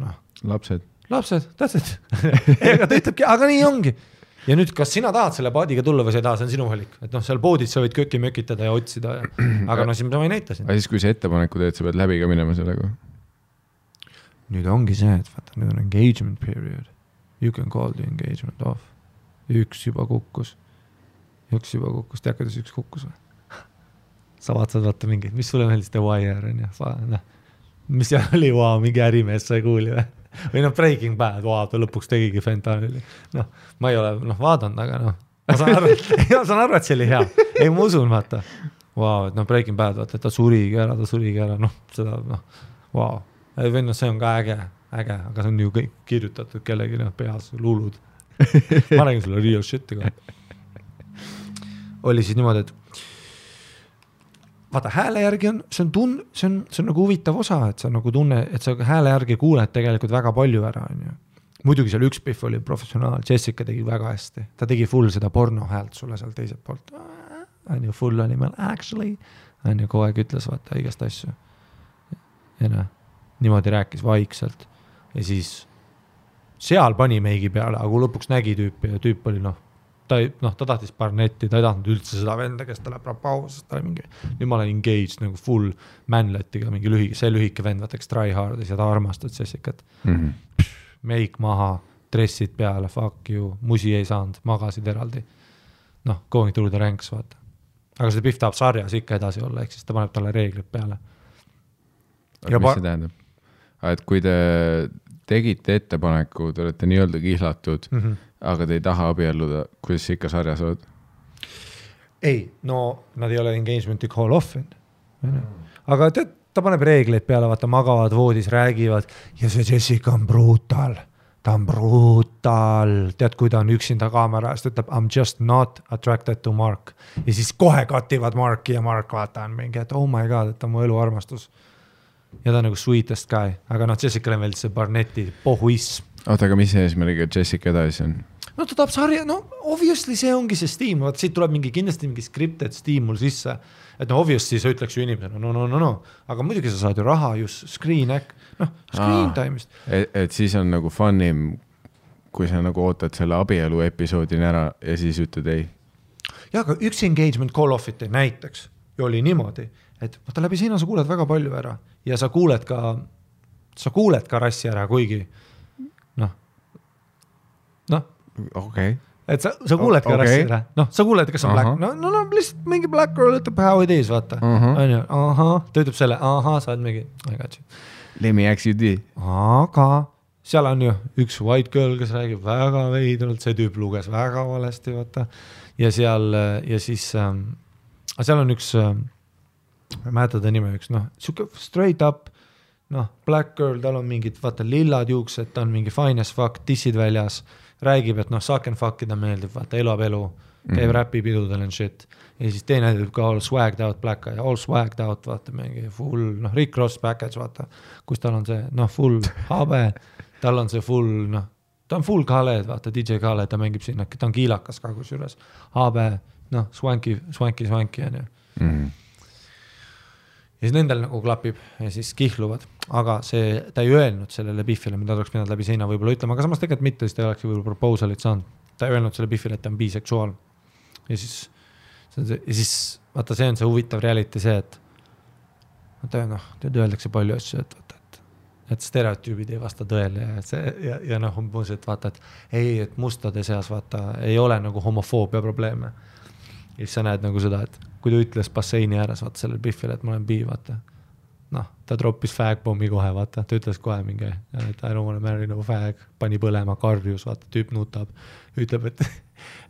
noh, lapsed, that's it. Ega ta ütlebki, aga nii ongi. Ja nüüd, kas sina tahad selle paadiga tulla või sa ei taha, see on sinu valik. Et noh, seal poodid sa võid köki mökitada ja otsida. Aga no siis ma ei näita siin. Aga siis, kui see ettepaneku teed, sa pead läbi ka minema sellega? Nüüd ongi see, et vaata, nüüd on engagement period. You can call the engagement off. Üks juba kukkus. Tead, kuidas üks kukkus või? Sa vaatad vaata mingeid, mis sulle meeldis The Wire on ja mis seal oli, mingi ärimees sai kuuli või Breaking Bad, ta lõpuks tegigi fentanyli. Ma ei ole vaadanud, aga ma saan aru, et see oli hea. Ei, ma usun, vaata. Et Breaking Bad, vaata, et ta surigi ära, seda, see on ka äge, aga see on ju kõik kirjutatud kellegi peas, luulud. Ma räägin sulle real shit'i ka. Oli siis niimoodi, et vaata, hääle järgi see on nagu huvitav osa, et sa nagu tunne, et sa hääle järgi kuuled tegelikult väga palju ära. Muidugi seal üks Biff oli professionaal, Jessica tegi väga hästi. Ta tegi full seda porno häält sulle seal teiselt poolt. Full oli meil actually. Kogu aeg ütles vaata igast asju. Ja niimoodi rääkis vaikselt. Ja siis seal pani meigi peale, aga kui lõpuks nägi tüüpi ja tüüp oli ta tahtis Barnetti, ta ei tahtnud üldse seda venda, kes ta läheb rapausest, ta oli mingi, nüüd ma olen engaged nagu full manlettiga, mingi lühike vend, vaata, eks try hardis ja ta armastad Jessicat. Meik maha, dressid peale, fuck you, musi ei saanud, magasid eraldi. Going through the ranks, vaata. Aga see Biff tahab sarjas ikka edasi olla, ehk siis ta paneb talle reeglid peale. Aga mis see tähendab? Et kui te tegite ettepaneku, te olete nii-öelda kihlatud, aga te ei taha abielluda, kuidas ikka sarjas oled? Ei, nad ei ole engagementi call off'in. Aga ta paneb reegleid peale, vaata, magavad voodis, räägivad ja see Jessica on brutal. Ta on brutal. Tead, kui ta on üksinda kaamera eest, ütleb, I'm just not attracted to Mark. Ja siis kohe kativad Marki ja Mark vaata on mingi, et oh my god, et ta on mu elu armastus. Ja ta on nagu sweetest guy. Aga Jessicale meeldis see Barnetti pohuism. Oota, aga mis eesmärgiga Jessica edasi on? Ta tahab sarja, obviously see ongi see stiimul, vaata siit tuleb kindlasti mingi scripted stiimul sisse, et obviously sa ütleks ju inimesena, no, aga muidugi sa saad ju raha just screen time'ist. Et siis on nagu funnim, kui sa nagu ootad selle abielu episoodini ära ja siis ütled ei. Ja, aga üks engagement call off'it näiteks ju oli niimoodi, et vaata läbi sina sa kuuled väga palju ära ja sa kuuled ka rassi ära, kuigi Okay. Et sa kuuled ka rassi ära. Sa kuuled, kas on black. Lihtsalt mingi black girl ütleb how it is, vaata. Ta ütleb selle, sa oled mingi, I got you. Let me ask you this. Aga seal on ju üks white girl, kes räägib väga veidralt, see tüüp luges väga valesti, vaata. Ja siis seal on üks, ma mäleta ta nime üks, siuke straight up, black girl, tal on mingid, vaata, lillad juuksed, ta on mingi fine as fuck, tissid väljas, räägib, et suck and fuckida meeldib, vaata, elab elu, käib räpipidudel and shit. Ja siis teine tüüp ka all swagged out black guy, all swagged out, vaata, mingi full, Rick Ross package, vaata, kus tal on see, full habe, tal on see full, ta on full Khaled, vaata, DJ Khaled, ta mängib sinna, ta on kiilakas ka kusjuures, habe, swanky, on ju. Ja siis nendel nagu klapib ja siis kihluvad, aga ta ei öelnud sellele Biffile, mida oleks pidanud läbi seina võib-olla ütlema, aga samas tegelikult mitte, siis ta oleks võib-olla proposalit saanud. Ta ei öelnud selle Biffile, et ta on biseksuaal. Ja siis vaata, see on see huvitav reality see, et öeldakse palju asju, et stereotüübid ei vasta tõele ja umbus, et vaata, et mustade seas vaata, ei ole nagu homofoobia probleeme. Ja siis sa näed nagu seda, et kui ta ütles basseini ääres, vaata sellel Biffile, et ma olen bi, vaata. Ta droppis fagbommi kohe, vaata. Ta ütles kohe mingi, et I don't want to marry no fag, pani põlema, karjus, vaata, tüüp nutab. Ütleb, et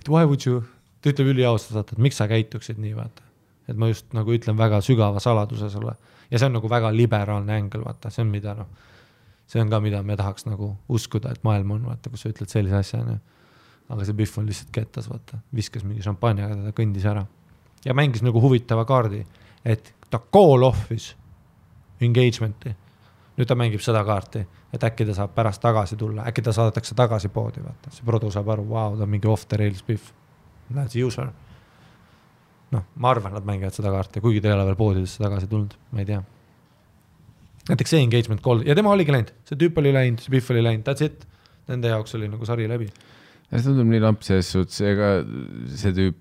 why would you, ta ütleb üliaustas, vaata, et miks sa käituksid nii, vaata. Et ma just nagu ütlen väga sügava saladuse sulle. Ja see on nagu väga liberaalne ängel, vaata. See on mida, see on ka, mida me tahaks nagu uskuda, et maailm on, vaata, kus sa ütled sellise asja, Aga see Biff on lihtsalt kettas, vaata. Viskas mingi šampanjaga, ta kõndis ära. ja mängis nagu huvitava kaardi, et ta call off'is engagement'i. Nüüd ta mängib seda kaarti, et äkki ta saab pärast tagasi tulla, äkki ta saadetakse tagasi poodi, vaata. See produ saab aru, wow, ta on mingi off the rails biff. That's user. Noh, ma arvan, nad mängivad seda kaarti, kuigi ta ei ole veel poodidesse tagasi tulnud, ma ei tea. Näiteks see engagement call, ja tema oligi läinud, see tüüp oli läinud, see biff oli läinud, that's it. Nende jaoks oli nagu sari läbi. Ja see tundub nii lamp selles suhtes, ega see tüüp,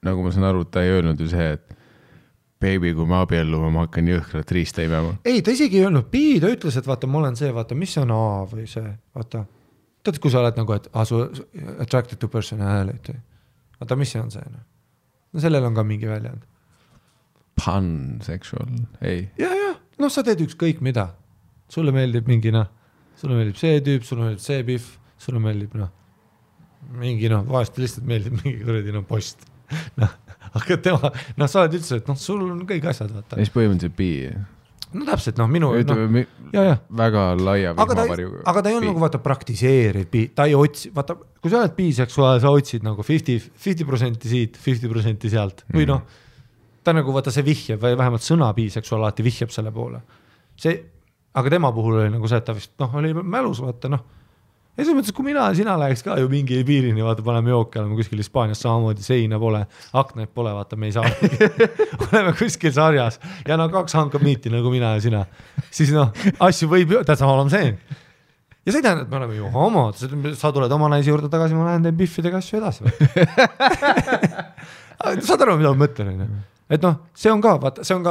nagu ma saan aru, ta ei öelnud ju see, et baby, kui ma abiellume, ma hakkan jõhkrat riista imema. Ei, ta isegi ei öelnud B, ta ütles, et vaata, ma olen see, vaata, mis on A või see, vaata. Tead, kui sa oled nagu, et su attracted to personality. Vaata, mis see on see? No sellel on ka mingi väljend. Pansexual, ei. Ja, noh, sa teed ükskõik mida. Sulle meeldib mingi, sulle meeldib see tüüp, sulle meeldib see biff, sulle meeldib, mingi, vahest lihtsalt meeldib mingi kuradi, post. Aga tema, sa oled üldse, et sul on kõik asjad, vaata. Mis põhimõtteliselt B? No täpselt, minu... väga laia vihmavarju. Aga ta ei ole nagu, vaata, praktiseeriv B. Ta ei otsi, vaata, kui sa oled biseksuaal, sa otsid nagu 50% siit, 50% sealt. Või ta nagu, vaata, see vihjab, või vähemalt sõna biseksuaal alati vihjab selle poole. Aga tema puhul oli nagu see, et ta vist, oli mälus, vaata, ja selles mõttes, kui mina ja sina läheks ka ju mingi piirini, vaata, paneme jooki, oleme kuskil Hispaanias samamoodi, seina pole, aknaid pole, vaata, me ei saa. oleme kuskil sarjas ja 2 hankab miiti nagu mina ja sina. Siis asju võib ju, täitsa olema see. Ja see ei tähendab, et me oleme ju homod, sa tuled oma naisi juurde tagasi, ma lähen teen biffidega asju edasi. Saad aru, mida ma mõtlen? Et see on ka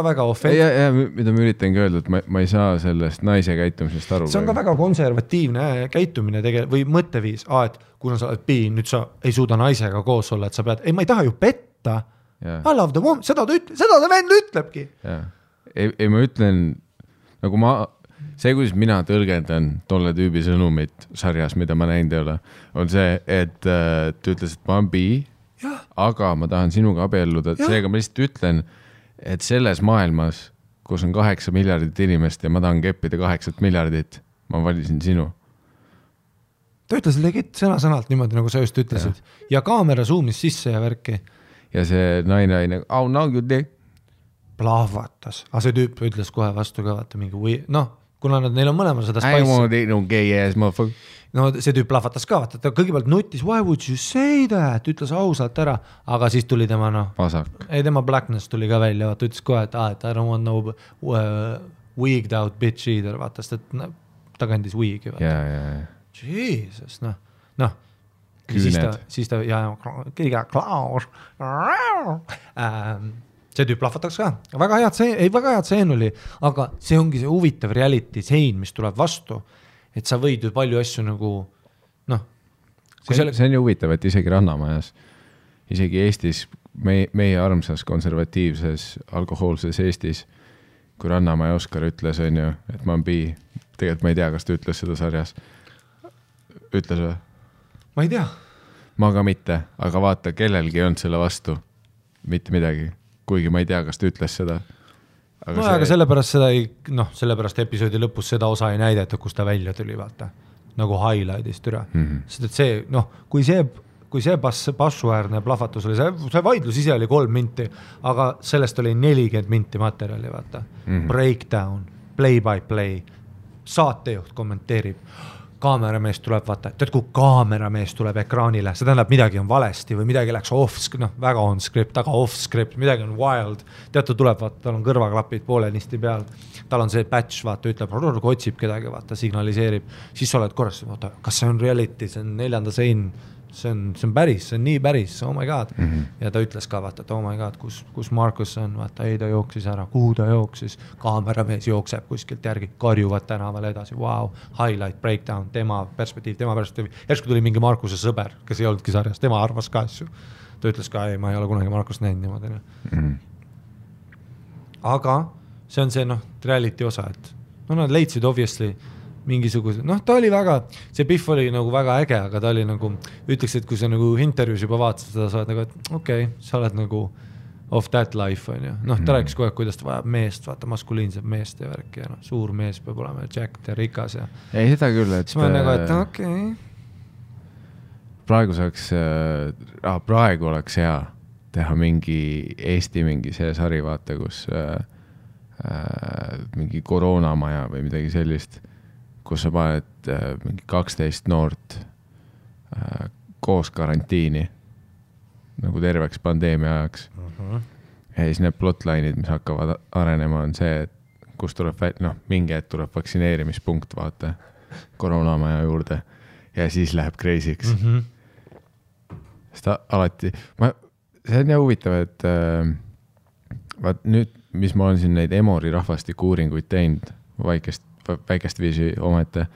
väga offensive. Ja, mida ma üritangi öelda, et ma ei saa sellest naise käitumisest aru. See on ka väga konservatiivne käitumine või mõtteviis, et kuna sa oled B, nüüd sa ei suuda naisega koos olla, et sa pead, ma ei taha ju petta. I love the woman, seda ta vend ütlebki. Ei, ma ütlen, nagu see, kuidas mina tõlgendan tolle tüübi sõnumit sarjas, mida ma näinud ei ole, on see, et ta ütles, et ma olen B, aga ma tahan sinuga abielluda, seega ma lihtsalt ütlen, et selles maailmas, kus on 8 miljardit inimest ja ma tahan keppida 8 miljardit, ma valisin sinu. Ta ütles legit sõna-sõnalt niimoodi, nagu sa just ütlesid. Ja kaamera zoomis sisse ja värki. Ja see naine, oh no you did. Plahvatas. Aga see tüüp ütles kohe vastu ka, vaata mingi, kuna neil on mõlemal seda spice. I want to no gay ass motherfucker. No see tüüp plahvatas ka, vaata, ta kõigepealt nutis, why would you say that, ütles ausalt ära, aga siis tuli tema, tema blackness tuli ka välja, vaata, ütles kohe, et I don't want no wigged out bitch either, vaata, sest et ta kandis wig'i, vaata. Jesus, siis ta, kõige klaus, see tüüp plahvataks ka, väga head seen oli, aga see ongi see huvitav reality sein, mis tuleb vastu, et sa võid ju palju asju nagu, see on ju huvitav, et isegi Rannamajas, isegi Eestis, meie armsas konservatiivses, alkohoolses Eestis, kui Rannamaja Oskar ütles, on ju, et ma olen B, tegelikult ma ei tea, kas ta ütles seda sarjas. Ütles või? Ma ei tea. Ma ka mitte, aga vaata, kellelgi on selle vastu mitte midagi, kuigi ma ei tea, kas ta ütles seda. Aga sellepärast sellepärast episoodi lõpus seda osa ei näideta, kus ta välja tuli, vaata, nagu highlightist üle. Sest et see, kui see passuäärne plahvatus oli, see vaidlus ise oli 3 minti, aga sellest oli 40 minti materjali, vaata. Breakdown, play by play, saatejuht kommenteerib, kaameramees tuleb, vaata, tead, kui kaameramees tuleb ekraanile, see tähendab, midagi on valesti või midagi läks off-script, väga on-script, aga off-script, midagi on wild, tead, ta tuleb, vaata, tal on kõrvaklapid poolenisti peal, tal on see patch, vaata, ütleb, otsib kedagi, vaata, signaliseerib, siis sa oled korras, vaata, kas see on reality, see on 4. sein, see on päris, see on nii päris, oh my god. Ja ta ütles ka, vaata, et oh my god, kus Markus on, vaata, ei ta jooksis ära, kuhu ta jooksis, kaameramees jookseb kuskilt järgi, karjuvad tänaval edasi, wow, highlight, breakdown, tema perspektiiv, järsku tuli mingi Markuse sõber, kes ei olnudki sarjas, tema arvas ka asju. Ta ütles ka, ei, ma ei ole kunagi Markust näinud niimoodi. Aga see on see, reality osa, et nad leidsid obviously mingisuguse, ta oli väga, see Biff oli nagu väga äge, aga ta oli nagu, ütleks, et kui sa nagu intervjuus juba vaatasid seda, sa oled nagu, et okei, sa oled nagu off that life, on ju. Ta rääkis kogu aeg, kuidas ta vajab meest, vaata, maskuliinset meest ja värk ja suur mees peab olema Jack ja rikas ja... Ei, seda küll, et... Siis ma nagu, et okei. Praegu oleks hea, teha mingi Eesti mingi see sari, vaata, kus mingi koroonamaja või midagi sellist, kus sa paned mingi 12 noort koos karantiini nagu terveks pandeemia ajaks. Ja siis need plotline'id, mis hakkavad arenema, on see, et kus tuleb, mingi hetk tuleb vaktsineerimispunkt, vaata, koroonamaja juurde ja siis läheb crazy'ks. Sest alati, see on jah huvitav, et vaat nüüd, mis ma olen siin neid Emori rahvastiku uuringuid teinud, väikest viisi omete.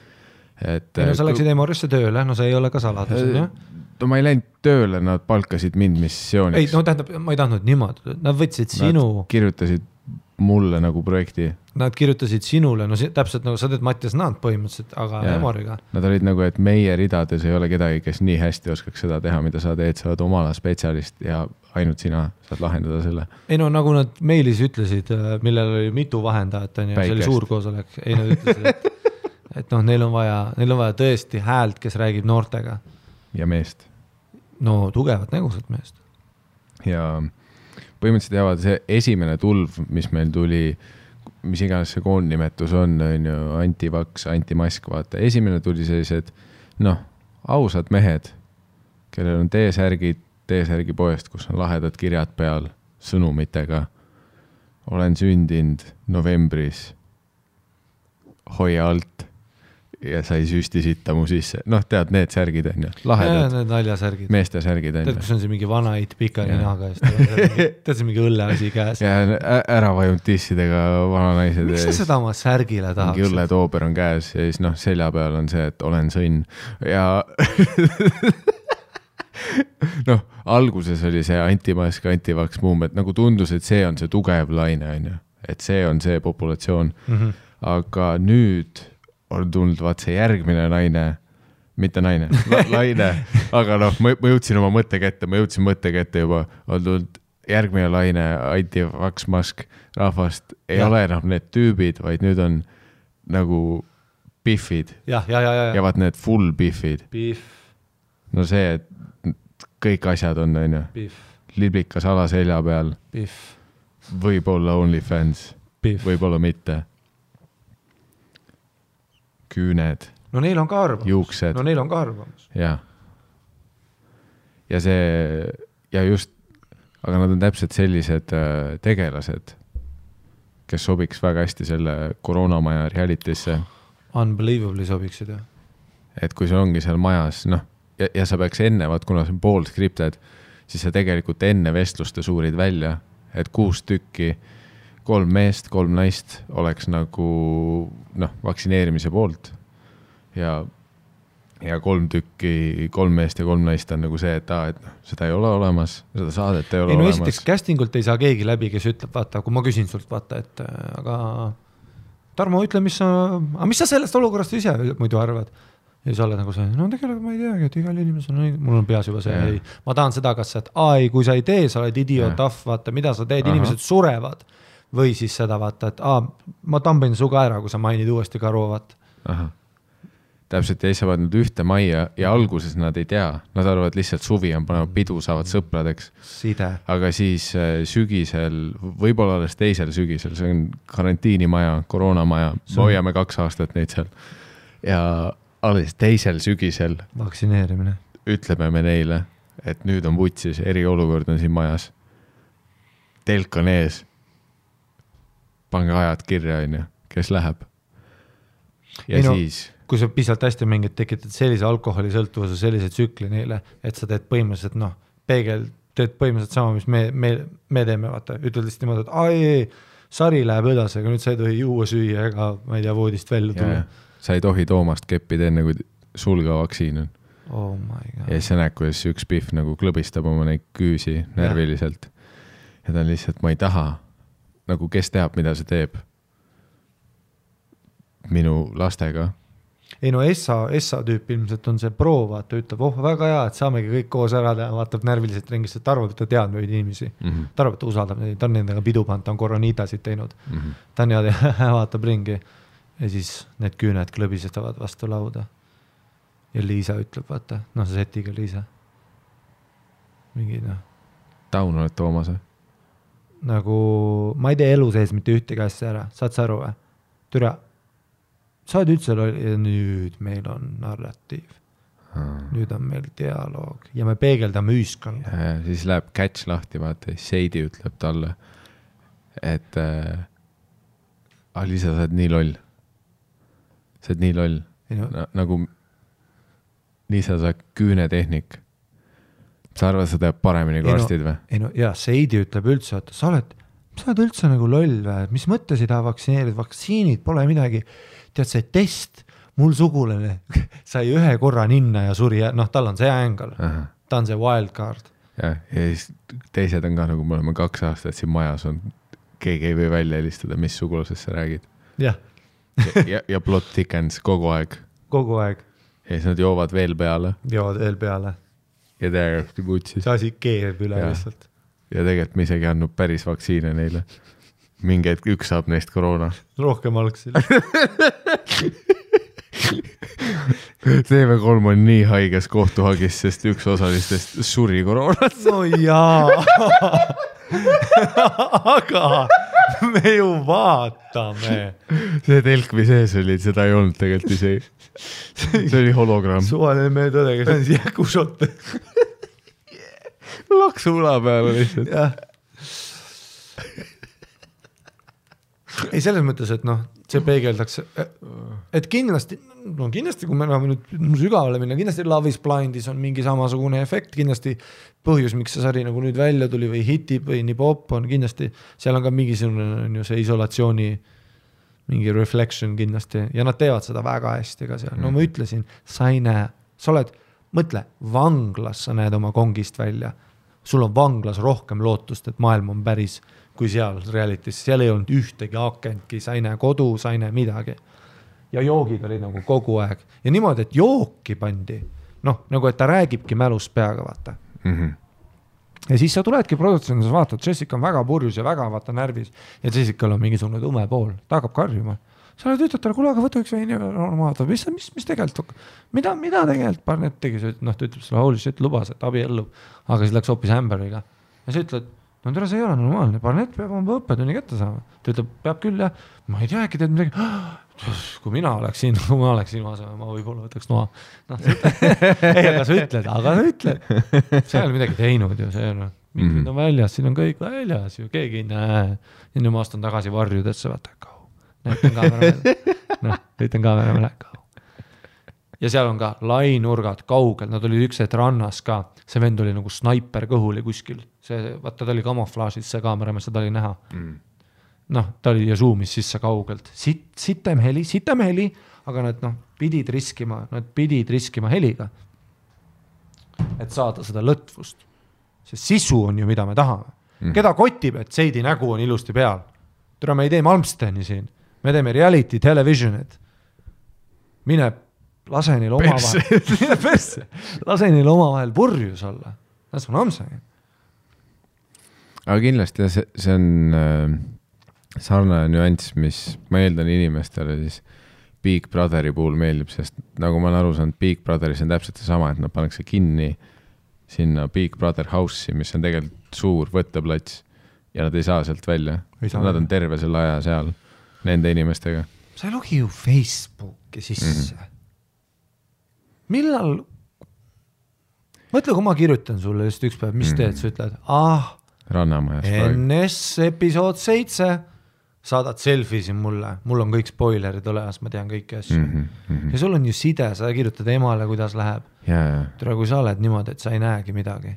Sa läksid Emorisse tööle, see ei ole ka saladus, jah? No ma ei läinud tööle, nad palkasid mind missiooniks. Ei, tähendab, ma ei tahtnud niimoodi. Nad võtsid sinu... Nad kirjutasid mulle nagu projekti. Nad kirjutasid sinule, täpselt nagu sa teed Mattias Naant põhimõtteliselt, aga Emoriga. Nad olid nagu, et meie ridades ei ole kedagi, kes nii hästi oskaks seda teha, mida sa teed, sa oled oma ala spetsialist ja ainult sina saad lahendada selle. Ei no nagu nad meilis ütlesid, millel oli mitu vahendajat, see oli suur koosolek. Ei nad ütlesid, et neil on vaja tõesti häält, kes räägib noortega. Ja meest. No tugevat nägusat meest. Ja põhimõtteliselt jäävad see esimene tulv, mis meil tuli, mis iganes see koondnimetus on antivaks, antimask, vaata. Esimene tuli sellised, ausad mehed, kellel on T-särgi poest, kus on lahedad kirjad peal sõnumitega. Olen sündinud novembris. Hoia alt. Ja sai süsti sitta mu sisse. Tead, need särgid on ju. Lahedad. Need naljasärgid. Meeste särgid on ju. Tead, kus on see mingi vana eit pika ninaga. Tead, see mingi õlleasi käes. Ja ära vajunud tissidega vana naised. Miks sa seda oma särgile tahaks? Mingi õlletoober on käes ja siis selja peal on see, et olen sõnn. Ja alguses oli see antimask, antivaks muum, et nagu tundus, et see on see tugev laine on ju. Et see on see populatsioon. Aga nüüd on tulnud vaat see järgmine naine, mitte naine, laine, aga ma jõudsin oma mõttekette juba, on tulnud järgmine laine, antivaks mask rahvast, ei ole enam need tüübid, vaid nüüd on nagu biffid. Ja vaat need full biffid. No see, et kõik asjad on ju. Liblikas ala selja peal. Võib-olla OnlyFans, võib-olla mitte. Küüned. No neil on ka arvamus. Juuksed. No neil on ka arvamus. Ja see, ja just, aga nad on täpselt sellised tegelased, kes sobiks väga hästi selle koroonamaja realitisse. Unbelievably sobiksid, jah. Et kui see ongi seal majas, ja sa peaks enne, kuna see on pool skripted, siis sa tegelikult enne vestluste suurid välja, et 6 tükki 3 meest, 3 naist oleks nagu vaktsineerimise poolt ja 3 tükki, 3 meest ja 3 naist on nagu see, et seda ei ole olemas, seda saadet ei ole olemas. Esiteks castingult ei saa keegi läbi, kes ütleb, vaata, kui ma küsin sult, vaata, et aga Tarmo, ütle, mis sa sellest olukorrast ise muidu arvad? Ja sa oled nagu see, tegelikult ma ei teagi, et igal inimesel mul on peas juba see, ma tahan seda, kas et kui sa ei tee, sa oled idioot, vaata, mida sa teed, inimesed surevad. Või siis seda vaata, et ma tambin su ka ära, kui sa mainid uuesti karu, vaata. Täpselt, ja siis saavad nüüd ühte majja ja alguses nad ei tea. Nad arvavad lihtsalt suvi on panevad pidu, saavad sõpradeks. Side. Aga siis sügisel, võib-olla alles teisel sügisel, see on karantiinimaja, koroonamaja, hoiame 2 aastat neid seal. Ja alles teisel sügisel vaktsineerimine. Ütleme me neile, et nüüd on vutsis, eriolukord on siin majas. Telk on ees. Pange ajad kirja, kes läheb. Ja siis... Kui sa pisalt hästi mängid, tekitad sellise alkoholisõltuvuse, sellise tsükli neile, et sa teed põhimõtteliselt, teed põhimõtteliselt sama, mis me teeme, vaata. Ütled lihtsalt niimoodi, et sari läheb edasi, aga nüüd sa ei tohi juua süüa ega, ma ei tea, voodist välja tulla. Sa ei tohi Toomast keppida enne, kui sul ka vaktsiin on. Oh my God. Ja siis sa näed, kuidas üks pihv nagu klõbistab oma neid küüsi närviliselt. Ja ta on lihtsalt, ma ei taha. Nagu kes teab, mida see teeb minu lastega. Ei no Essa tüüp ilmselt on see pro, vaata, ütleb, väga hea, et saamegi kõik koos ära teha, vaatab närviliselt ringist, et arvab, et ta tead neid inimesi. Ta arvab, et ta usaldab neid, ta on nendega pidu pand, ta on koroniitasid teinud. Ta on vaatab ringi ja siis need küüned klõbisestavad vastu lauda. Ja Liisa ütleb, vaata, see setiga Liisa. Mingi down oled Toomas? Nagu, ma ei tee elu sees mitte ühtegi asja ära, saad sa aru või? Türa, sa oled üldse ja nüüd meil on narratiiv. Nüüd on meil dialoog ja me peegeldame ühiskonda. Ja siis läheb catch lahti, vaata, Seidi ütleb talle, et Liisa, sa oled nii loll. Sa oled nii loll. Nagu Liisa, sa oled küünetehnik. Sa arvad, sa teeb paremini kui arstid või? Ei no, ja Seidi ütleb üldse, et sa oled üldse nagu loll või, mis mõttes ei taha vaktsineerida, vaktsiinid pole midagi. Tead, see test, mul sugulane sai ühe korra ninna ja suri, tal on see ängel, ta on see wildcard. Ja siis teised on ka nagu, me oleme 2 aastat siin majas on, keegi ei või välja helistada, mis sugulasest sa räägid. Ja. ja plot thickens kogu aeg. Kogu aeg. Ja siis nad joovad veel peale. Ja täiesti putsis. See asi keerb üle lihtsalt. Ja tegelikult me isegi andnud päris vaktsiine neile. Mingi hetk üks saab neist koroona. Rohkem algsil. TV3 on nii haiges kohtuhagis, sest üks osalistest suri koroonat. No jaa. Aga me ju vaatame. See telkvi sees oli, seda ei olnud tegelikult isegi. See oli hologramm. Suvaline meie tõde, kes on jäkušotte. Laksu ula peale lihtsalt. Ei, selles mõttes, et see peegeldaks, et kindlasti, kui me oleme nüüd sügavale minna, kindlasti Love is Blindis on mingi samasugune efekt, kindlasti põhjus, miks see sari nagu nüüd välja tuli või hitib või nii pop on kindlasti, seal on ka mingisugune see isolatsiooni mingi reflection kindlasti ja nad teevad seda väga hästi ka seal. No ma ütlesin, sa ei näe, sa oled, mõtle, vanglas sa näed oma kongist välja. Sul on vanglas rohkem lootust, et maailm on päris kui seal realitis. Seal ei olnud ühtegi akentki, sa ei näe kodu, sa ei näe midagi. Ja joogid olid nagu kogu aeg. Ja niimoodi, et jooki pandi. Nagu et ta räägibki mälus peaga, vaata. Ja siis sa tuledki produktsionis, vaatad, Jessica on väga purjus ja väga vaata närvis ja Jessica'l on mingisugune tume pool, ta hakkab karjuma. Sa oled ütled talle, kuule, aga võta üks veini vaata, mis tegelikult, mida tegelikult Barnett tegi, ta ütleb sulle, holy shit, lubas, et abi ellub, aga siis läks hoopis Amberiga. Ja sa ütled, no tere, see ei ole normaalne, Barnett peab oma õppetunni kätte saama. Ta ütleb, peab küll, jah, ma ei tea, äkki teed midagi, kui mina oleksin asemel, ma võib-olla võtaks noa. Ei, aga sa ütled, see ei ole midagi teinud ju, see on, mingid on väljas, siin on kõik väljas ju, keegi ei näe. Ja nüüd ma astan tagasi varjudesse, vaata, näitan kaamera peale, ja seal on ka lainurgad kaugel, nad olid üks hetk rannas ka, see vend oli nagu snaiper kõhuli kuskil, vaata ta oli kamuflaažis, see kaameramees, seda oli näha. Ta oli ja zoomis sisse kaugelt, sitem heli, aga nad pidid riskima heliga, et saada seda lõtvust. See sisu on ju, mida me tahame. Keda kotib, et Seidi nägu on ilusti peal? Tere, me ei tee Malmsteni siin. Me teeme reality televisionit. Mine lase neil omavahel purjus olla. That's what I'm saying. Aga kindlasti see on sarnane nüanss, mis ma eeldan inimestele siis Big Brotheri puhul meeldib, sest nagu ma olen aru saanud, Big Brotheris on täpselt see sama, et nad pannakse kinni sinna Big Brother house'i, mis on tegelikult suur võtteplats ja nad ei saa sealt välja. Nad on terve selle aja seal nende inimestega. Sa ei logi ju Facebooki sisse. Millal? Mõtle, kui ma kirjutan sulle just üks päev, mis teed, sa ütled, Rannamajas NS episood 7, saadad selfie siin mulle, mul on kõik spoilerid olemas, ma tean kõiki asju. Ja sul on ju side, sa kirjutad emale, kuidas läheb. Tere, kui sa oled niimoodi, et sa ei näegi midagi.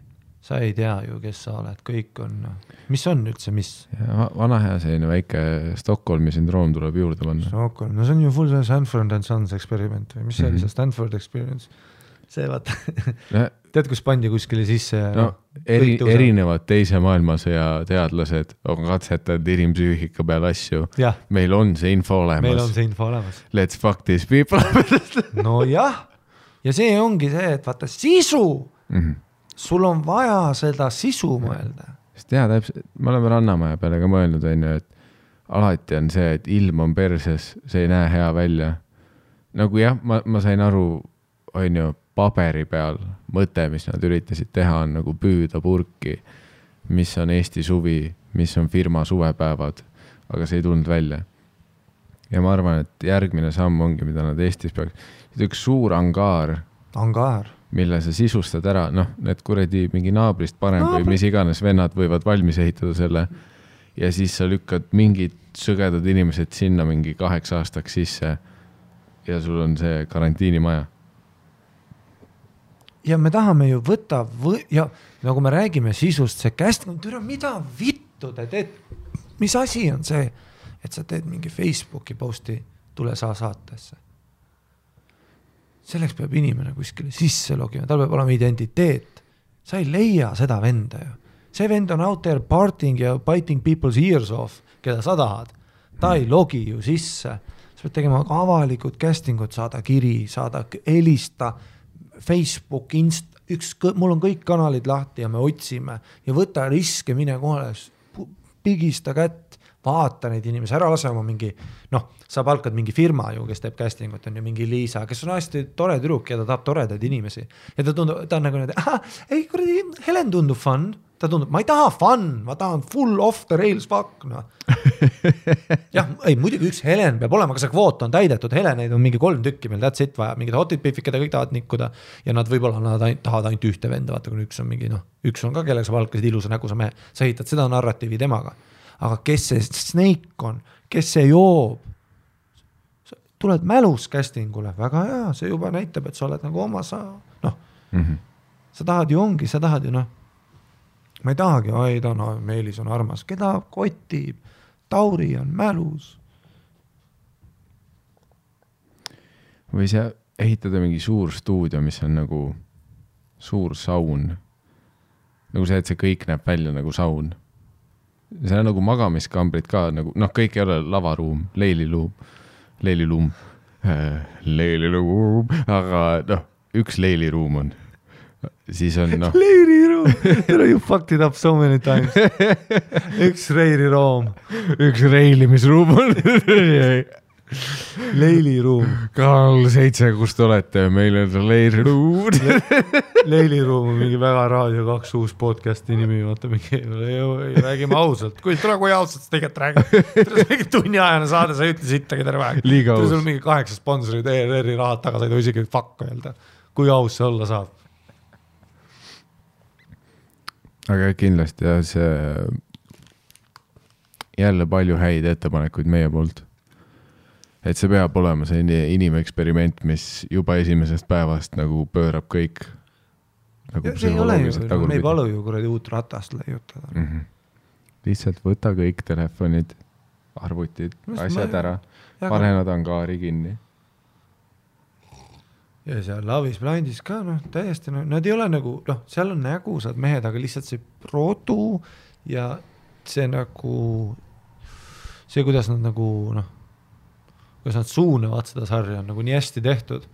Sa ei tea ju, kes sa oled, kõik on, mis on üldse, mis? Vana hea selline väike Stockholmi syndroom tuleb juurde panna. Stockholm, no see on ju full Stanford and Sons experiment või mis see oli see Stanford experience? See vaata, tead, kus pandi kuskile sisse? Erinevad teise maailmasõja teadlased on katsetanud inimpsüühika peal asju. Meil on see info olemas. Let's fuck these people. No jah, ja see ongi see, et vaata sisu. Sul on vaja seda sisu mõelda. Sest täpselt, me oleme Rannamaja peale ka mõelnud, et alati on see, et ilm on perses, see ei näe hea välja. Nagu jah, ma sain aru, paberi peal mõte, mis nad üritasid teha, on nagu püüda purki mis on Eesti suvi, mis on firma suvepäevad, aga see ei tulnud välja. Ja ma arvan, et järgmine samm ongi, mida nad Eestis peaks. Üks suur angaar, mille sa sisustad ära, noh, need kuradi mingi naabrist parem või mis iganes vennad võivad valmis ehitada selle ja siis sa lükkad mingid sõgedad inimesed sinna mingi 8 aastaks sisse ja sul on see karantiinimaja. Ja me tahame ju võtta ja nagu me räägime sisust, see mida vittu te teed? Mis asi on see, et sa teed mingi Facebooki posti tule saa saatesse? Selleks peab inimene kuskile sisse logima, tal peab olema identiteet. Sa ei leia seda venda ju. See vend on out there partying ja biting people's ears off, keda sa tahad. Ta ei logi ju sisse. Sa pead tegema avalikud castingud, saada kiri, saada helista, Facebook, mul on kõik kanalid lahti ja me otsime ja võta riske, mine kohale, pigista kätt, vaata neid inimesi, ära lase oma mingi, sa palkad mingi firma ju, kes teeb castingut, on ju mingi Liisa, kes on hästi tore tüdruk ja ta tahab toredaid inimesi. Ja ta on nagu need, ei kuradi, Helen tundub fun, ta tundub, ma ei taha fun, ma tahan full off the rails fuck, no. Jah, ei, muidugi üks Helen peab olema, aga see kvoot on täidetud, Heleneid on mingi 3 tükki meil, that's it vaja, mingid hotid piifid, keda kõik tahavad nikkuda ja nad võib-olla tahavad ainult ühte venda, vaata, kui üks on mingi, üks on ka, kellega sa palkasid ilusa nägusa mehe, sa ehitad seda narratiivi temaga, aga kes see Snake on, kes see joob, tuled mälus castingule, väga hea, see juba näitab, et sa oled nagu oma, sa tahad ju ongi, sa tahad ju ma ei tahagi, Meelis on armas, keda kotib, Tauri on mälus. Või sa ehitada mingi suur stuudio, mis on nagu suur saun. Nagu see, et see kõik näeb välja nagu saun. See on nagu magamiskambrid ka, nagu, kõik ei ole lavaruum, leililuum, aga üks leiliruum on. Siis on Leiriruum, you fucked it up so many times. Üks reiriruum. Üks reilimisruum on. Leiliruum. Karl 7, kus te olete, meil on leiriruum. Leiliruum on mingi väga Raadio 2 uus podcasti nimi, vaata mingi, räägime ausalt, kui ausalt sa tegelikult räägid. Mingi tunniajane saade, sa ei ütle sittagi terve aeg. Liiga aus. Sul mingi 8 sponsorid ERR-i rahad taga, sa ei tohi isegi fuck öelda. Kui aus see olla saab. Aga kindlasti ja see jälle palju häid ettepanekuid meie poolt. Et see peab olema see inimeksperiment, mis juba esimesest päevast nagu pöörab kõik nagu psühholoogiliselt tagurpidi. Me ei palu ju kuradi uut ratast leiutada. Lihtsalt võta kõik telefonid, arvutid, asjad ära, pane nad angaari kinni. Ja seal Lavis Blindis ka, täiesti, nad ei ole nagu, seal on nägusad mehed, aga lihtsalt see produ ja see nagu, see kuidas nad nagu, kuidas nad suunavad seda sarja on nagu nii hästi tehtud,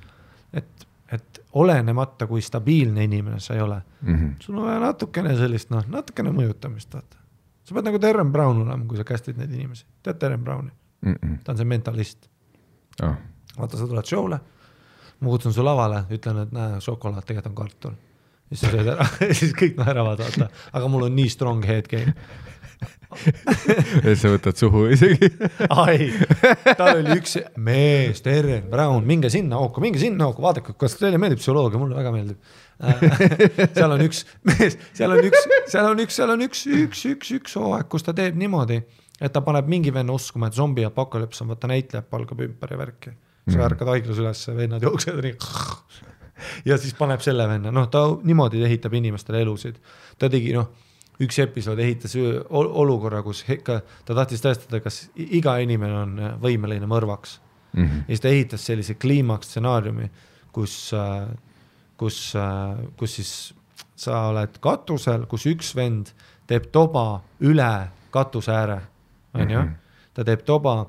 et olenemata kui stabiilne inimene sa ei ole. Sul on vaja natukene sellist, natukene mõjutamist. Vaata. Sa pead nagu Darren Brown olema, kui sa kästid neid inimesi. Tead Darren Browni? Ta on see mentalist. Vaata, sa tuled show'le, ma kutsun su lavale, ütlen, et šokolaad tegelikult on kartul. Ja siis sööd ära, siis kõik naeravad, vaata. Aga mul on nii strong head game. Et sa võtad suhu isegi. Ai, tal oli üks mees, Darren Brown, minge sinna hooku, vaadake, kas teile meeldib psühholoogia, mulle väga meeldib. Seal on üks mees, seal on üks hooaeg, kus ta teeb niimoodi, et ta paneb mingi venna uskuma, et zombi apokalüps on, võtta näitlejad palgab ümber ja värki. Sa ärkad haiglas üles, vennad jooksed nii. Ja siis paneb selle venna. Ta niimoodi ehitab inimestele elusid. Ta tegi, üks episood ehitas olukorra, kus ta tahtis tõestada, kas iga inimene on võimeline mõrvaks. Ja siis ta ehitas sellise kliimaks stsenaariumi, kus siis sa oled katusel, kus üks vend teeb toba üle katuse ääre. Ta teeb toba,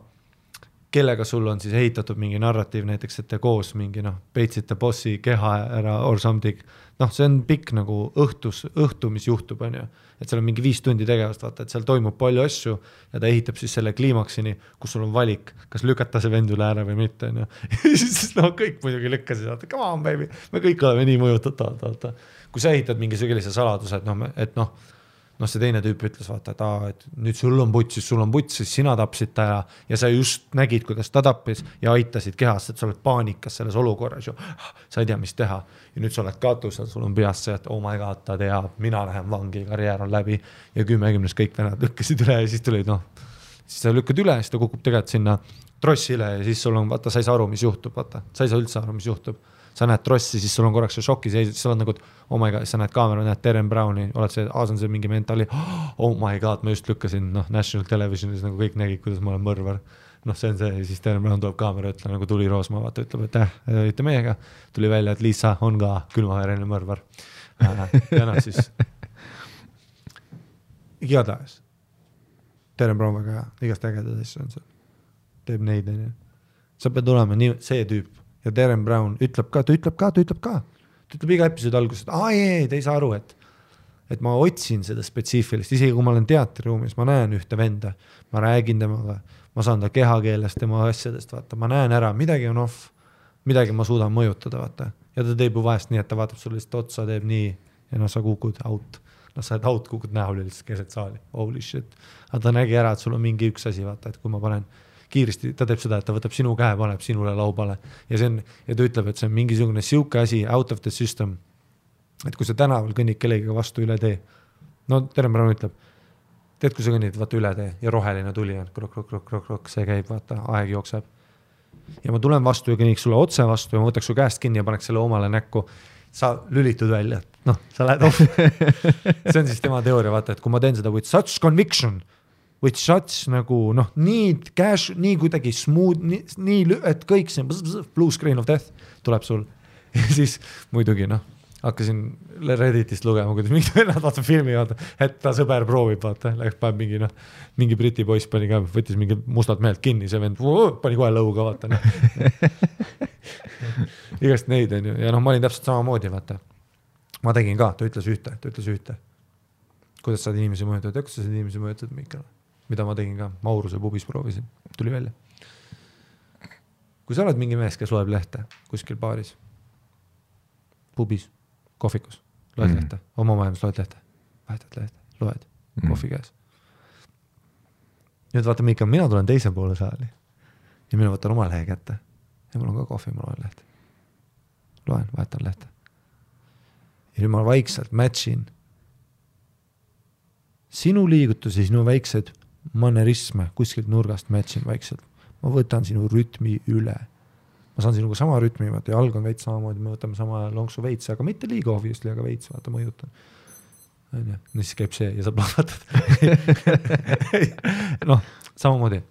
kellega sul on siis ehitatud mingi narratiiv, näiteks, et te koos mingi, peitsite bossi keha ära or something. See on pikk nagu õhtu, mis juhtub, on ju. Et seal on mingi 5 tundi tegevust, vaata, et seal toimub palju asju ja ta ehitab siis selle kliimaksini, kus sul on valik, kas lükata see vend üle ära või mitte, on ju. Ja siis kõik muidugi lükkasid, vaata, come on baby, me kõik oleme nii mõjutatavad, vaata. Kui sa ehitad mingi sellise saladuse, et noh, see teine tüüp ütles, vaata, et nüüd sul on puts, siis sina tapsid ta ja sa just nägid, kuidas ta tappis ja aitasid kehast, et sa oled paanikas selles olukorras ju, sa ei tea, mis teha. Ja nüüd sa oled katusel, sul on peas see, et oh my god, ta teab, mina lähen vangi, karjäär on läbi ja 10 kõik venad lükkasid üle ja siis tulid, siis sa lükkad üle, siis ta kukub tegelikult sinna trossile ja siis sul on, vaata, sa ei saa aru, mis juhtub, vaata, sa ei saa üldse aru, mis juhtub. Sa näed trossi, siis sul on korraks see šoki seis, siis sa oled nagu, oh my god, sa näed kaamera, näed Darren Browni, oled see, on see mingi mentali, oh my god, ma just lükkasin, National Televisionis nagu kõik nägid, kuidas ma olen mõrvar. See on see, ja siis Darren Brown tuleb kaamera, ütleb nagu Tuli Roosma, vaata, ütleb, et olite meiega, tuli välja, et Liisa on ka külmavereline mõrvar. Ja siis igatahes Darren Brown väga hea, igast ägedad asju on see, teeb neid, sa pead olema nii, see tüüp. Ja Darren Brown ütleb ka. Ta ütleb iga episoodi alguses, et te ei saa aru, et ma otsin seda spetsiifilist, isegi kui ma olen teatriruumis, ma näen ühte venda, ma räägin temaga, ma saan ta kehakeelest, tema asjadest, vaata, ma näen ära, midagi on off, midagi ma suudan mõjutada, vaata. Ja ta teeb ju vahest nii, et ta vaatab sulle lihtsalt otsa, teeb nii ja sa kukud out. Sa oled out, kukud näole lihtsalt keset saali, holy shit. Aga ta nägi ära, et sul on mingi üks asi, vaata, et kui ma panen kiiresti, ta teeb seda, et ta võtab sinu käe, paneb sinule laubale ja ta ütleb, et see on mingisugune siuke asi out of the system, et kui sa tänaval kõnnid kellegiga vastu üle tee, Darren Brown ütleb, tead, kui sa kõnnid, vaata üle tee ja roheline tuli on, krok, see käib, vaata, aeg jookseb ja ma tulen vastu ja kõnniks sulle otse vastu ja ma võtaks su käest kinni ja paneks selle omale näkku, sa lülitud välja, sa lähed off. See on siis tema teooria, vaata, et kui ma teen seda with such conviction, with such nagu, nii cash, nii kuidagi smooth, nii, et kõik see blue screen of death tuleb sul. Ja siis muidugi, hakkasin Redditist lugema, kuidas mingi vennad vaata filmi, vaata, et ta sõber proovib, vaata, läks paneb mingi briti poiss pani ka, võttis mingi mustalt mehelt kinni, see vend pani kohe lõuga, vaata. Igast neid on ju, ja ma olin täpselt samamoodi, vaata. Ma tegin ka, ta ütles ühte. Kuidas saad inimesi mõjutada, kuidas saad inimesi mõjutada, Mikal? Mida ma tegin ka, Mauruse pubis proovisin, tuli välja. Kui sa oled mingi mees, kes loeb lehte kuskil baaris, pubis, kohvikus, loed lehte, oma maailmas loed lehte, vahetad lehte, loed, kohvi käes. Nüüd vaata, Mikal, mina tulen teise poole saali ja mina võtan oma lehe kätte ja mul on ka kohvi, ma loen lehte. Loen, vahetan lehte. Ja nüüd ma vaikselt matchin sinu liigutusi, sinu väiksed manerisme kuskilt nurgast matchin vaikselt. Ma võtan sinu rütmi üle. Ma saan sinuga sama rütmi, vaata, ja alg on veits samamoodi, me võtame sama lonksu veits, aga mitte liiga obviously, aga veits, vaata, mõjutan. Ja siis käib see ja sa plahvatad. Samamoodi.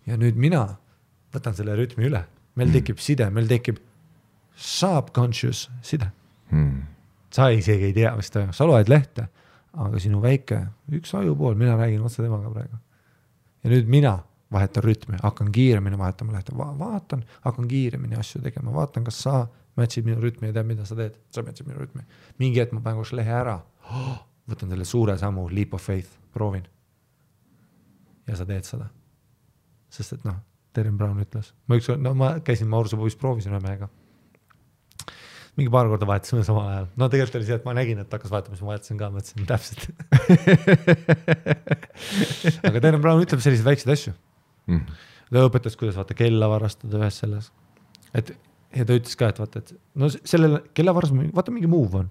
Ja nüüd mina võtan selle rütmi üle. Meil tekib side, meil tekib subconscious side. Sa isegi ei tea, mis ta, sa loed lehte, aga sinu väike, üks ajupool, mina räägin otse temaga praegu. Ja nüüd mina vahetan rütmi, hakkan kiiremini vahetama lehte, vaatan, hakkan kiiremini asju tegema, vaatan, kas sa matchid minu rütmi ja tead, mida sa teed, sa matchid minu rütmi. Mingi hetk ma panen koos lehe ära, võtan selle suure sammu, leap of faith, proovin. Ja sa teed seda. Sest et Darren Brown ütles. Ma käisin Mauruse pubis, proovisin ühe mehega. Mingi paar korda vahetasime samal ajal. Tegelikult oli see, et ma nägin, et hakkas vahetama, siis ma vahetasin ka, mõtlesin täpselt. Aga Darren Brown ütleb selliseid väikseid asju. Ta õpetas, kuidas vaata kella varastada ühes selles. Ja ta ütles ka, et vaata, et sellele kella varastada, vaata mingi move on.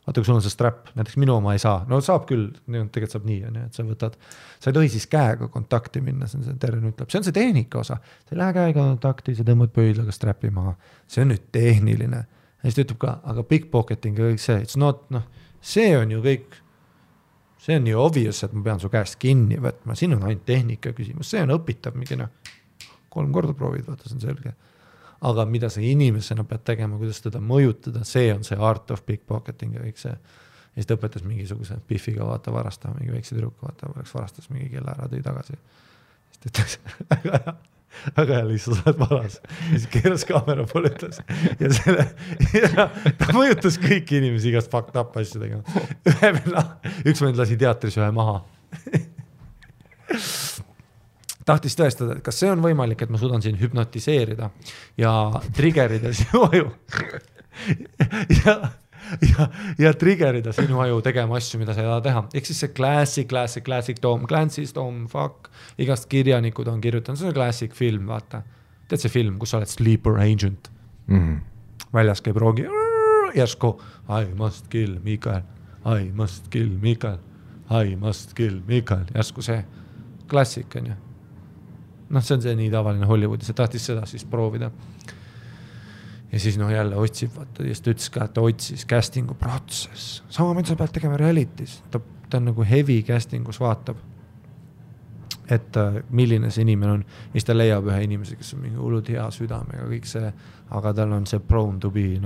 Vaata, kui sul on see strap, näiteks minu oma ei saa. Saab küll, tegelikult saab nii, et sa võtad, sa ei tohi siis käega kontakti minna, see on see Darren ütleb. See on see tehnika osa. Sa ei lähe käega kontakti, sa tõmbad pöidlaga strappi maha. See on nüüd tehniline. Ja siis ta ütleb ka, aga pickpocketing ja kõik see, it's not, see on ju kõik, see on nii obvious, et ma pean su käest kinni võtma. Siin on ainult tehnika küsimus, see on õpitav mingi 3 korda proovid, vaata, see on selge. Aga mida sa inimesena pead tegema, kuidas teda mõjutada, see on see art of pickpocketing ja kõik see. Ja siis ta õpetas mingisuguse piffiga vaata varastama, mingi väikse tüdruku vaata, oleks varastas mingi kella ära, tõi tagasi. Siis ta ütles, aga lihtsalt sa oled varas. Ja siis keeras kaamera poole ütles. Ja ta mõjutas kõiki inimesi igast fucked up asju tegema. Üks vend lasi teatris ühe maha. Tahtis tõestada, et kas see on võimalik, et ma suudan siin hüpnotiseerida ja triggerida sinu aju. ja triggerida sinu aju tegema asju, mida sa ei taha teha. Ehk siis see classic Tom Clancy's, Tom Fuck, igast kirjanikud on kirjutanud, see on classic film, vaata. Tead see film, kus sa oled sleeper agent. Väljas käib roogi, järsku, I must kill Mikael, I must kill Mikael, I must kill Mikael, järsku see klassik on ju. Noh, see on see nii tavaline Hollywoodis, see tahtis seda siis proovida. Ja siis jälle otsib, vaata, ja siis ta ütles ka, et ta otsis castingu protsess. Sama mida sa pead tegema realitis. Ta on nagu heavy castingus vaatab, et milline see inimene on. Ja siis ta leiab ühe inimese, kes on mingi hullud hea südamega, kõik see, aga tal on see prone to be,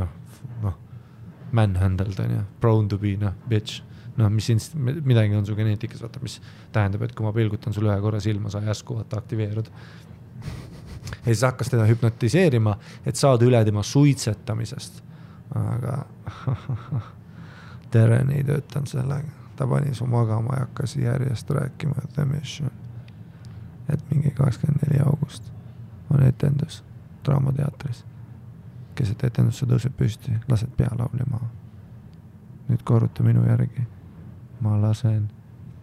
manhandled on ja, prone to be, bitch. Midagi on su geneetikas, vaata, mis tähendab, et kui ma pilgutan sul ühe korra silma, sa järsku vaata aktiveerud. Ja siis hakkas teda hüpnotiseerima, et saada üle tema suitsetamisest. Aga Teren ei töötanud sellega. Ta pani su magama ja hakkas järjest rääkima The Mission. Et mingi 24. august on etendus Draamateatris. Keset etendusse tõuseb püsti, lased pealauli maha. Nüüd korruta minu järgi. Ma lasen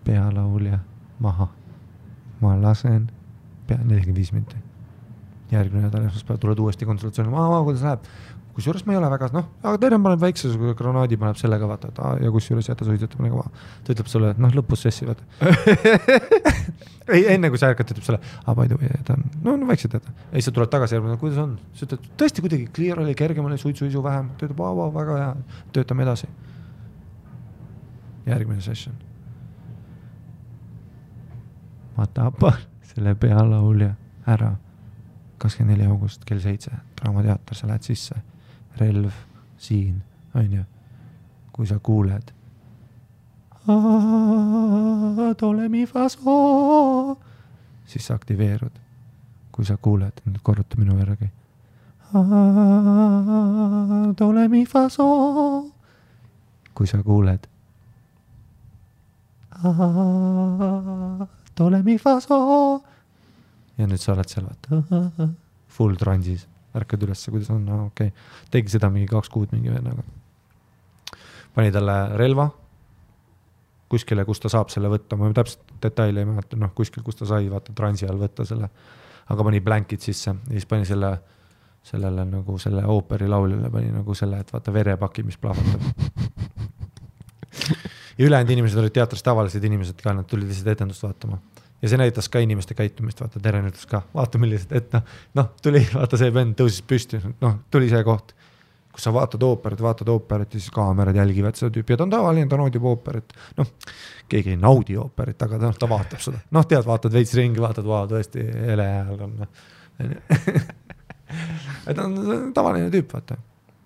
pealaulja maha. Ma lasen 45 minti. Järgmine nädal esmaspäev tuled uuesti konsultatsiooni. Kuidas läheb? Kusjuures ma ei ole väga, aga Teren paneb väikse granaadi, paneb sellega vaata, et ja kusjuures jäta suitsetab nagu ta ütleb sulle, et lõpus sessi vaata. Ei, enne kui sa ärkad, ütleb sulle, by the way, ta on väikselt jätta. Ja siis sa tuled tagasi järgmine, kuidas on? Sa ütled, tõesti kuidagi clear oli, kergem oli, suitsu vähem. Ta ütleb, väga hea, töötame edasi. Järgmine session. Ma tapan selle pealaulja ära. 24. august kell 7, Draamateater, sa lähed sisse, relv siin, on ju, kui sa kuuled tole mi faso, siis sa aktiveerud, kui sa kuuled, nüüd korruta minu järgi tole mi faso, kui sa kuuled tole mi faso. Ja nüüd sa oled seal, vaata, full transis, ärkad ülesse, kuidas on, okei. Tegi seda mingi 2 kuud mingi vennaga. Pani talle relva kuskile, kus ta saab selle võtta, ma täpselt detaili ei mäleta, kuskil, kus ta sai, vaata, transi all võtta selle, aga pani blankid sisse ja siis pani sellele nagu selle ooperi lauljale pani nagu selle, et vaata verepaki, mis plahvatab. Ja ülejäänud inimesed olid teatris tavalised inimesed ka, nad tulid lihtsalt etendust vaatama. Ja see näitas ka inimeste käitumist, vaata, Teren ütles ka, vaata millised, et tuli, vaata see vend tõusis püsti, tuli see koht, kus sa vaatad ooperit ja siis kaamerad jälgivad seda tüüpi ja ta on tavaline, ta naudib ooperit, keegi ei naudi ooperit, aga ta vaatab seda, tead, vaatad veits ringi, vaatad, tõesti, hele hääl on, et on tavaline tüüp, vaata,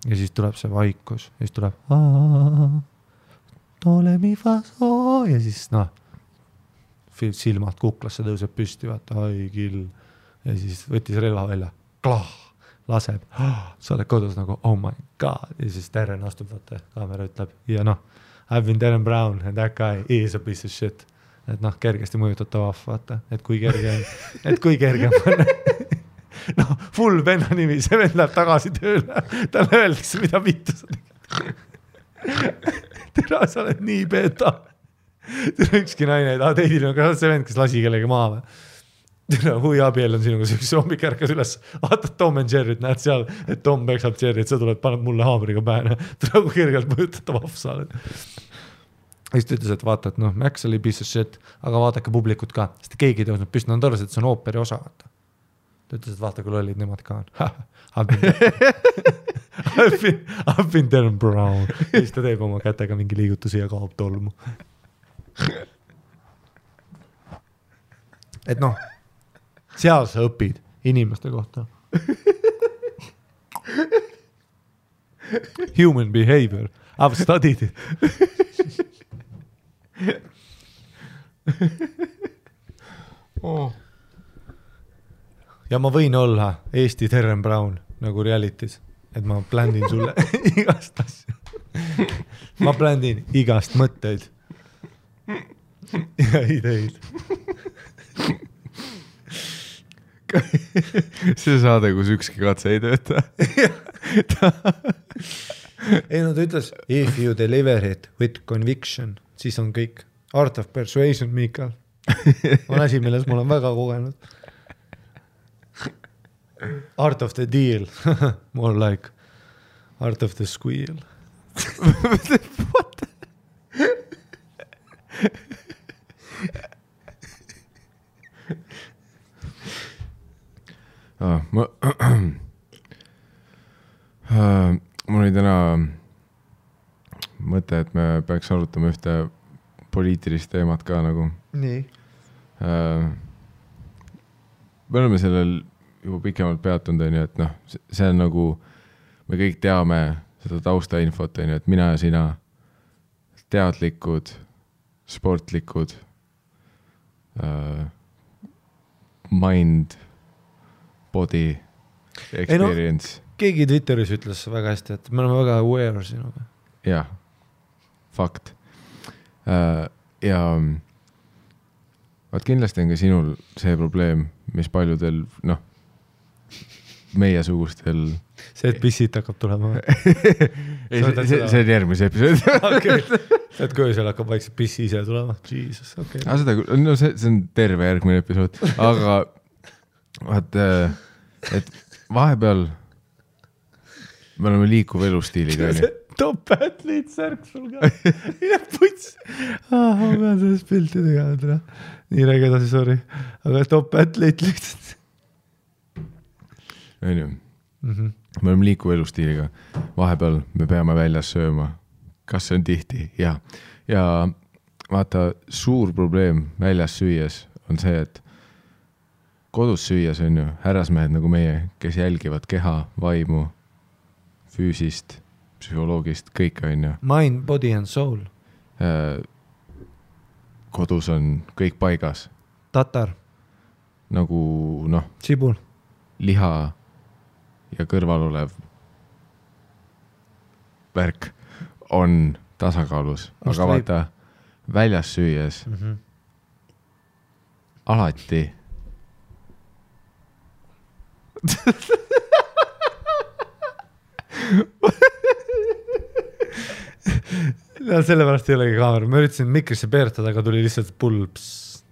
ja siis tuleb see vaikus ja siis tuleb tole mi faso ja siis silmad kuklasse tõuseb püsti, vaata, ai kill. Ja siis võttis relva välja, klah, laseb, sa oled kodus nagu, oh my god. Ja siis Teren astub, vaata, kaamera ütleb, ja I've been Teren Brown and that guy is a piece of shit. Et kergesti mõjutatav, vaata, et kui kerge on. Full venna nimi, see vend läheb tagasi tööle, talle öeldakse, mida vittu sa tegid. Tere, sa oled nii beta. Tere, ükski naine, teidil on ka see vend, kes lasi kellegi maha või. Tere, hui abiel on sinuga üks hommik ärkas üles, vaatad Tom and Jerry't, näed seal, et Tom peksab Jerry't, sa tuled, paned mulle haamriga pähe, tere, kui kergelt mõjutatav afsa oled. Ja siis ta ütles, et vaata, et Max oli piece of shit, aga vaadake publikut ka, sest keegi tõusnud püsti, on tõrjas, et see on ooperi osa. Ta ütles, et vaata, kui lollid nemad ka on. I've been Teren Brown. Ja siis ta teeb oma kätega mingi liigutusi ja kaob tolmu. Et seal sa õpid inimeste kohta. Human behavior. I've studied it. Ja ma võin olla Eesti Teren Brown nagu realities, et ma pländin sulle igast asja. Ma pländin igast mõtteid ja ideid. See saade, kus ükski katse ei tööta. ei no ta ütles, if you deliver it with conviction, siis on kõik. Art of persuasion, Miikal. On asi, milles ma olen väga kogenud. Art of the deal. More like art of the squeal. What? Mul oli täna mõte, et me peaks arutama ühte poliitilist teemat ka nagu. Nii. Me oleme sellel juba pikemalt peatunud, et noh, see on nagu, me kõik teame seda taustainfot, et mina ja sina teadlikud, sportlikud, mind, body, experience. Ei no, keegi Twitteris ütles väga hästi, et me oleme väga aware sinuga. Jah, fakt. Ja vaat kindlasti on ka sinul see probleem, mis paljudel, noh, meie sugustel. See, et pissit hakkab tulema. see on järgmise episood. Okay. Et kui seal hakkab vaikselt pissi ise tulema. Jesus, okay. No see on terve järgmine episood. Aga vaat, et vahepeal me oleme liikuv elustiiliga. Top athlete särk sul ka. Mine puts. Ma pean sellest pilti tegema. Nii räägi edasi, sorry. Aga top athlete lihtsalt. Me oleme liikuv elustiiliga. Vahepeal me peame väljas sööma. Kas see on tihti? Ja vaata, suur probleem väljas süües on see, et kodus süües on ju härrasmehed nagu meie, kes jälgivad keha, vaimu, füüsist, psühholoogist, kõik on ju. Mind, body and soul. Kodus on kõik paigas. Tatar. Nagu, noh. Sibul. Liha ja kõrval olev värk on tasakaalus. Aga vaata, väljas süües alati no sellepärast ei olegi kaamera. Ma üritasin mikrisse peertada, aga tuli lihtsalt pulps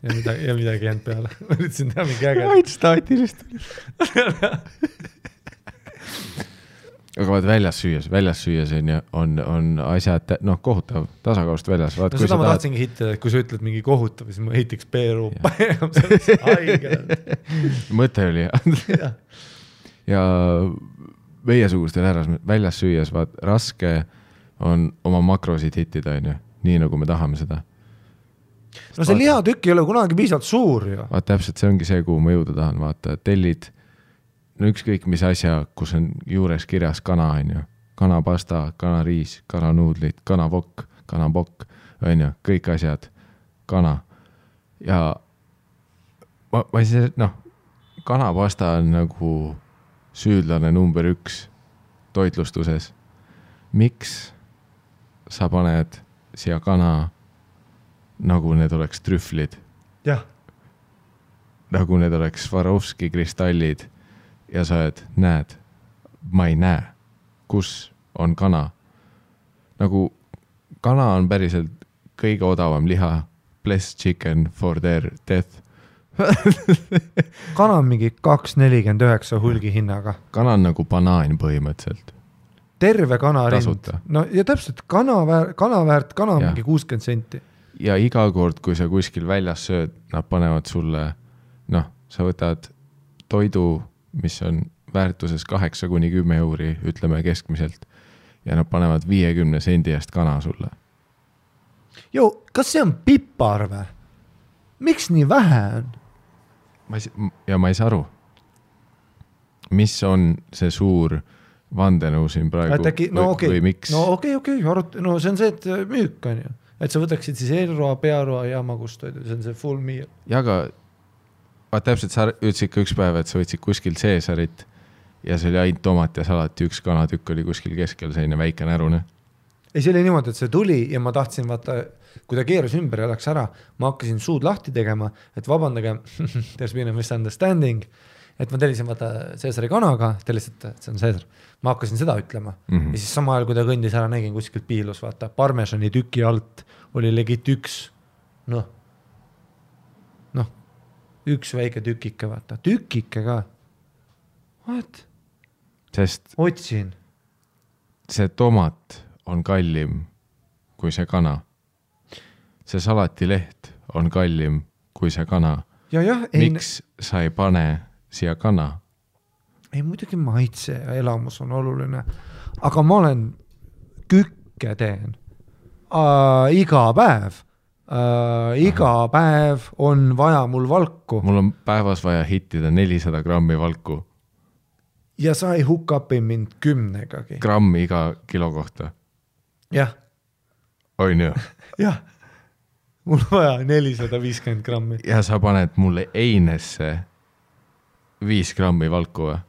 ja midagi jäänud peale. Ma üritasin teha mingi äge. Vaid staatilist tuli. Aga vaat väljas süües on asjad, noh, kohutav tasakaalust väljas. Vaat, no seda ma tahtsingi hitta, et kui sa ütled mingi kohutav, siis ma hitiks peeru. Mõte oli. Ja meiesugustel väljas süües, vaat raske on oma makrosid hittida, nii nagu me tahame seda. No see lihatükk ei ole kunagi piisavalt suur ju. Vaat täpselt, see ongi see, kuhu ma jõuda tahan. Vaata, tellid, no ükskõik mis asja, kus on juures kirjas kana, kanapasta, kanariis, kananuudlid, kanapokk, kõik asjad, kana. Ja ma ei see, noh, kanapasta on nagu süüdlane number 1 toitlustuses. Miks sa paned siia kana, nagu need oleks trühvlid? Jah. Nagu need oleks Swarovski kristallid ja sa näed, ma ei näe, kus on kana. Nagu kana on päriselt kõige odavam liha, bless chicken for their death. Kana on mingi 2,49 hulgi hinnaga. Kana on nagu banaan põhimõtteliselt. Terve kanarind. Tasuta. No ja täpselt, kana on mingi 60 senti. Ja iga kord, kui sa kuskil väljas sööd, nad panevad sulle, noh, sa võtad toidu, mis on väärtuses 8-10 euri, ütleme keskmiselt, ja nad panevad 50 sendi eest kana sulle. Jo, kas see on pipar või? Miks nii vähe on? Ma ei saa aru. Mis on see suur vandenõu siin praegu või miks? No okei, no see on see, et müük on ju. Et sa võtaksid siis eelroa, pearoa ja magustoidu, see on see full meal. Ja aga täpselt sa ütlesid ka üks päev, et sa võtsid kuskil Caesarit ja see oli ainult tomat ja salati, üks kanatükk oli kuskil keskel selline väike närune. Ei, see oli niimoodi, et see tuli ja ma tahtsin vaata, kui ta keeras ümber ja läks ära, ma hakkasin suud lahti tegema, et vabandage, there's been a misunderstanding et ma tellisin vaata Caesari kanaga, ta lihtsalt, et see on Caesar. Ma hakkasin seda ütlema ja siis sama ajal, kui ta kõndis ära, nägin kuskilt piilus, vaata, parmesani tüki alt oli legit üks väike tükike, vaata, tükike ka. What? Sest otsin. See tomat on kallim kui see kana. See salatileht on kallim kui see kana. Miks sa ei pane siia kana? Ei, muidugi maitse ja elamus on oluline. Aga ma olen kükke teen iga päev. Iga päev on vaja mul valku. Mul on päevas vaja hittida 400 grammi valku. Ja sa ei hukkapi mind 10-gagi. Grammi iga kilo kohta? Jah. On ju? Jah. Mul on vaja 450 grammi. Ja sa paned mulle einesse 5 grammi valku või?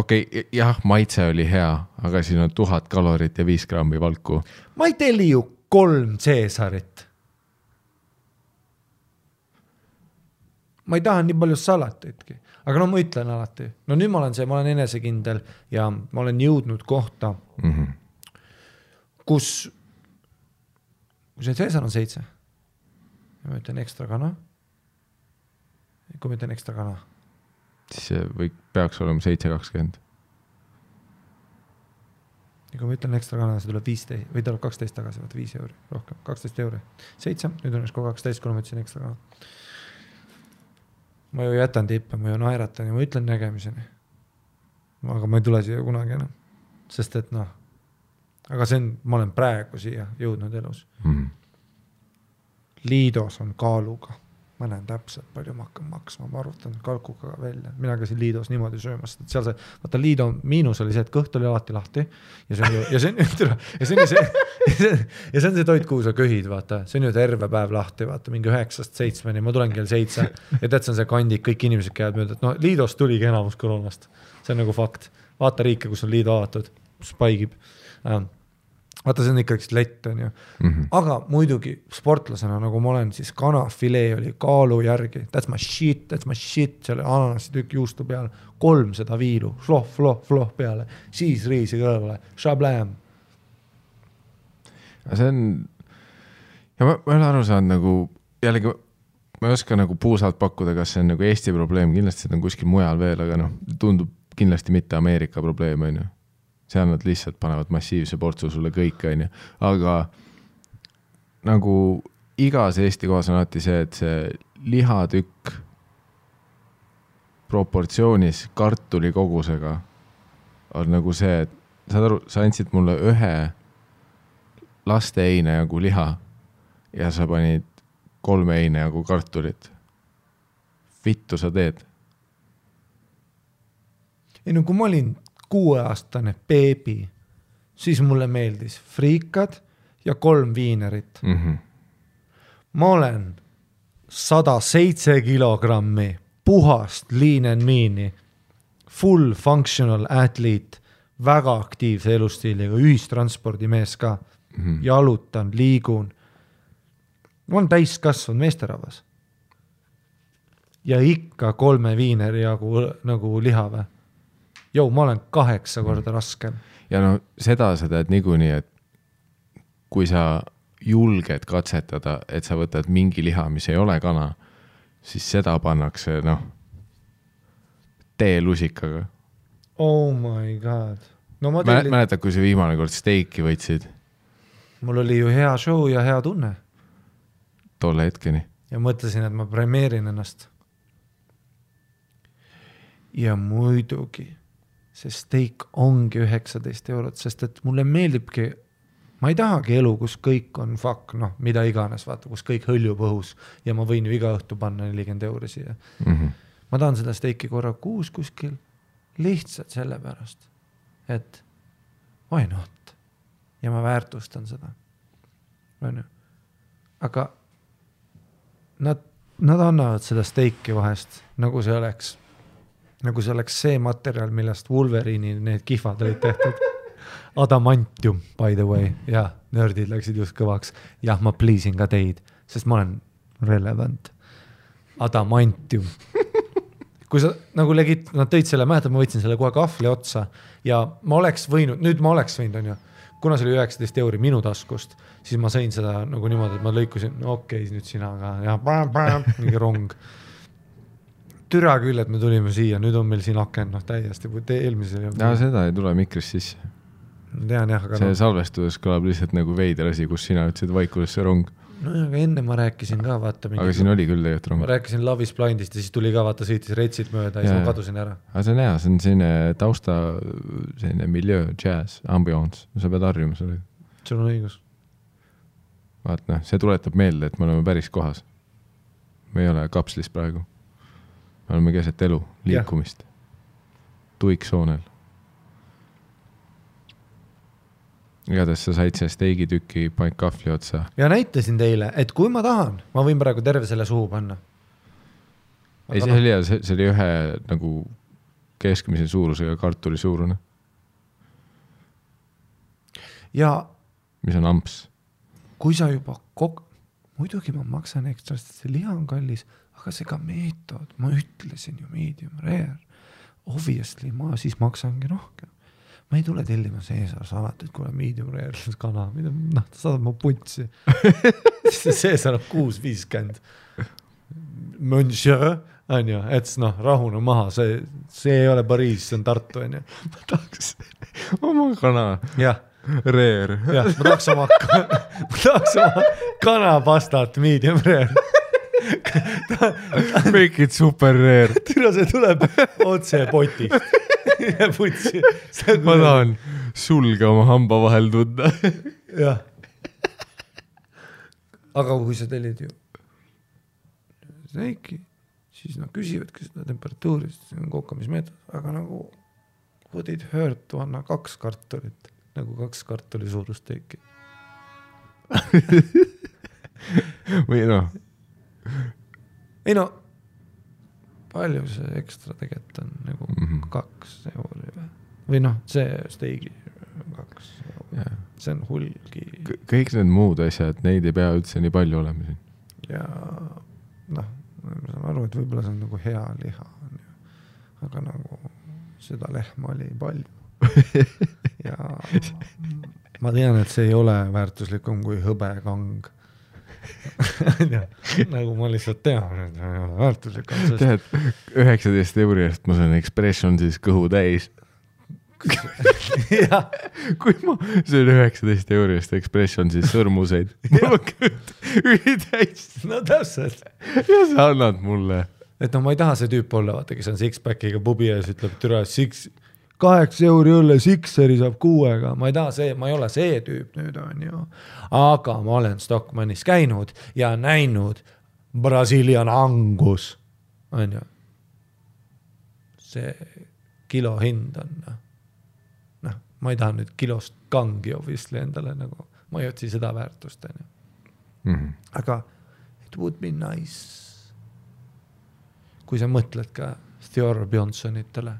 Okei, jah, maitse oli hea, aga siin on 1000 kalorit ja 5 grammi valku. Ma ei telli ju 3 Caesarit. Ma ei taha nii palju salatitki. Aga no ma ütlen alati. No nüüd ma olen enesekindel ja ma olen jõudnud kohta, kus see Caesar on 7. Ja ma ütlen ekstra kana. Kui ma ütlen ekstra kana. Siis see peaks olema 7.20. Ja kui ma ütlen ekstra kana, see tuleb 15 või tuleb 12 tagasi, vaata 5 euri, rohkem, 12 euri. 7, nüüd on kogu 12, kui ma ütlesin ekstra kana. Ma ju jätan tippe, ma ju naeratan ja ma ütlen nägemiseni. Aga ma ei tule siia kunagi enam. Sest et aga ma olen praegu siia jõudnud elus. Liidos on kaaluga. Ma näen täpselt palju ma hakkan maksma, ma arvutan kalkuga välja. Mina käisin Liidos niimoodi söömas. Seal vaata Liido miinus oli see, et kõht oli alati lahti ja see on see toit, kuhu sa köhid, vaata. See on ju terve päev lahti, vaata, mingi 9-7, ma tulen kell 7 ja tead, see on see kandik, kõik inimesed käivad mööda, et Liidos tuligi enamus koroonast. See on nagu fakt. Vaata riike, kus on Liido avatud, spaigib. Vaata, see on ikka üks lett, on ju. Aga muidugi sportlasena, nagu ma olen, siis kanafilee oli kaalu järgi. That's my shit. Selle ananasi tükk juustu peale. 300 viilu. Floh peale. Siis riisi kõrvale. Shablam. See on... Ja ma olen aru saanud nagu... Jällegi, ma ei oska nagu puusalt pakkuda, kas see on nagu Eesti probleem. Kindlasti see on kuskil mujal veel, aga tundub kindlasti mitte Ameerika probleem, on ju. Seal nad lihtsalt panevad massiivse portsu sulle kõik, on ju. Aga nagu igas Eesti kohas on alati see, et see lihatükk proportsioonis kartuli kogusega on nagu see, et saad aru, sa andsid mulle ühe laste eine jagu liha ja sa panid 3 eine jagu kartulit. Vittu sa teed? Ei, no kui ma olin 6-aastane beebi, siis mulle meeldis friikad ja 3 viinerit. Ma olen 107 kilogrammi puhast lean and mean'i, full functional athlete, väga aktiivse elustiiliga, ühistranspordimees ka, jalutan, liigun. Ma olen täiskasvanud meesterahvas. Ja ikka 3 viineri jagu nagu liha või. Ma olen 8 korda raskem. Ja seda sa tead niikuinii, et kui sa julged katsetada, et sa võtad mingi liha, mis ei ole kana, siis seda pannakse, teelusikaga. Oh my god. Mäletad, kui see viimane kord steiki võtsid? Mul oli ju hea show ja hea tunne. Tolle hetkeni. Ja mõtlesin, et ma premeerin ennast. Ja muidugi see steik ongi 19 €, sest et mulle meeldibki, ma ei tahagi elu, kus kõik on fuck, mida iganes, vaata, kus kõik hõljub õhus ja ma võin ju iga õhtu panna 40 € siia. Ma tahan seda steiki korra kuus kuskil lihtsalt selle pärast, et why not? Ja ma väärtustan seda. Aga nad annavad seda steiki vahest, nagu see oleks see materjal, millest Wolverine'i need kihvad olid tehtud. Adamantium, by the way. Ja, nördid läksid just kõvaks. Jah, ma pleasin ka teid, sest ma olen relevant. Adamantium. kui sa nagu nad tõid selle, mäletad, ma võtsin selle kohe kahvli otsa ja ma oleks võinud, on ju, kuna see oli 19 € minu taskust, siis ma sõin seda nagu niimoodi, et ma lõikusin, okei, nüüd sina ka, ja mingi rong. Türa küll, et me tulime siia, nüüd on meil siin aken, täiesti, eelmisel. Ja seda ei tule mikrist sisse. Tean jah, aga see salvestudes kõlab lihtsalt nagu veider asi, kus sina ütlesid vaikusesse rong. No aga enne ma rääkisin ka, vaata. Aga siin oli küll tegelikult rong. Ma rääkisin Love is Blindist ja siis tuli ka, vaata, sõitis retsid mööda ja siis ma kadusin ära. Aga see on hea, see on selline tausta, selline milieu, jazz, ambiance. Sa pead harjuma selle. Sul on õigus. Vaat see tuletab meelde, et me oleme päris kohas. Me ei ole kapslis praegu. Me oleme keset elu, liikumist. Tuiksoonel. Igatahes sa said see steigitüki paik kahvli otsa. Ja näitasin teile, et kui ma tahan, ma võin praegu terve selle suhu panna. Ei, see oli hea, see oli ühe nagu keskmise suurusega kartuli suurune. Ja mis on amps? Kui sa juba muidugi ma maksan ekstra, sest see liha on kallis, aga see ka meetod, ma ütlesin ju medium rare. Obviously, ma siis maksangi rohkem. Ma ei tule tellima Caesar salat, et kui on medium rare kana, ta saadab mu puntsi. Caesar on 6.50. Monsieur, on ju, et rahune maha, see ei ole Pariis, see on Tartu, on ju. Ma tahaks oma kana. Jah. Rare. Jah, ma tahaks oma kanapastat medium rare. Make it super rare. Tira see tuleb otse potist. Ja putsi. Ma tahan sulge oma hamba vahel tunda. Jah. Aga kui sa tellid ju steiki, siis küsivadki seda temperatuurist, see on kokkamismeetod, aga nagu would it hurt to anna 2 kartulit, nagu 2 kartuli suurust steiki. Või Ei palju see ekstra tegelikult on nagu 2 € või see steigi 2 €. See on hulgi. Kõik need muud asjad, neid ei pea üldse nii palju olema siin. Ja ma saan aru, et võib-olla see on nagu hea liha. Aga nagu seda lehma oli palju. Ja ma tean, et see ei ole väärtuslikum kui hõbekang. Nagu ma lihtsalt tean, et ei ole väärtuslikum. Tead, 19 € eest ma saan expression siis kõhu täis. Kui ma söön 19 € eest expression siis sõrmuseid. Ma kõht ülitäis. No täpselt. Ja sa annad mulle. Et ma ei taha see tüüp olla, vaata, kes on six-packiga pubi ja siis ütleb, türa 8 € õlle Sixeri saab 6-ga. Ma ei ole see tüüp nüüd on ju. Aga ma olen Stockmannis käinud ja näinud Brazilian Angus. On ju. See kilo hind on. Ma ei taha nüüd kilost kangi obviously endale nagu. Ma ei otsi seda väärtust. Aga it would be nice. Kui sa mõtled ka Theodore Bjonsonitele,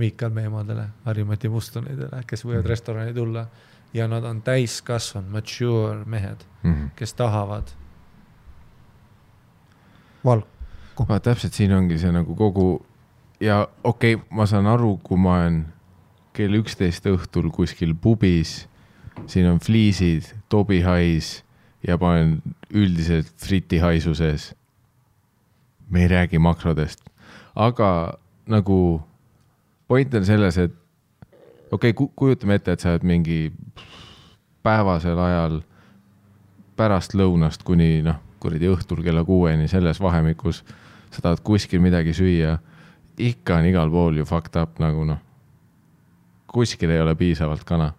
Miikal Meemadele, Harimati Mustonidele, kes võivad restorani tulla ja nad on täiskasvanud, mature mehed, kes tahavad valku. Täpselt siin ongi see nagu kogu ja okei, ma saan aru, kui ma olen kell 11 õhtul kuskil pubis, siin on fliisid, tobihais ja ma olen üldiselt fritihaisuses. Me ei räägi makrodest, aga nagu point on selles, et kujutame ette, et sa oled mingi päevasel ajal pärast lõunast kuni kuradi õhtul kella 6-ni selles vahemikus, sa tahad kuskil midagi süüa, ikka on igal pool ju fucked up nagu kuskil ei ole piisavalt kana.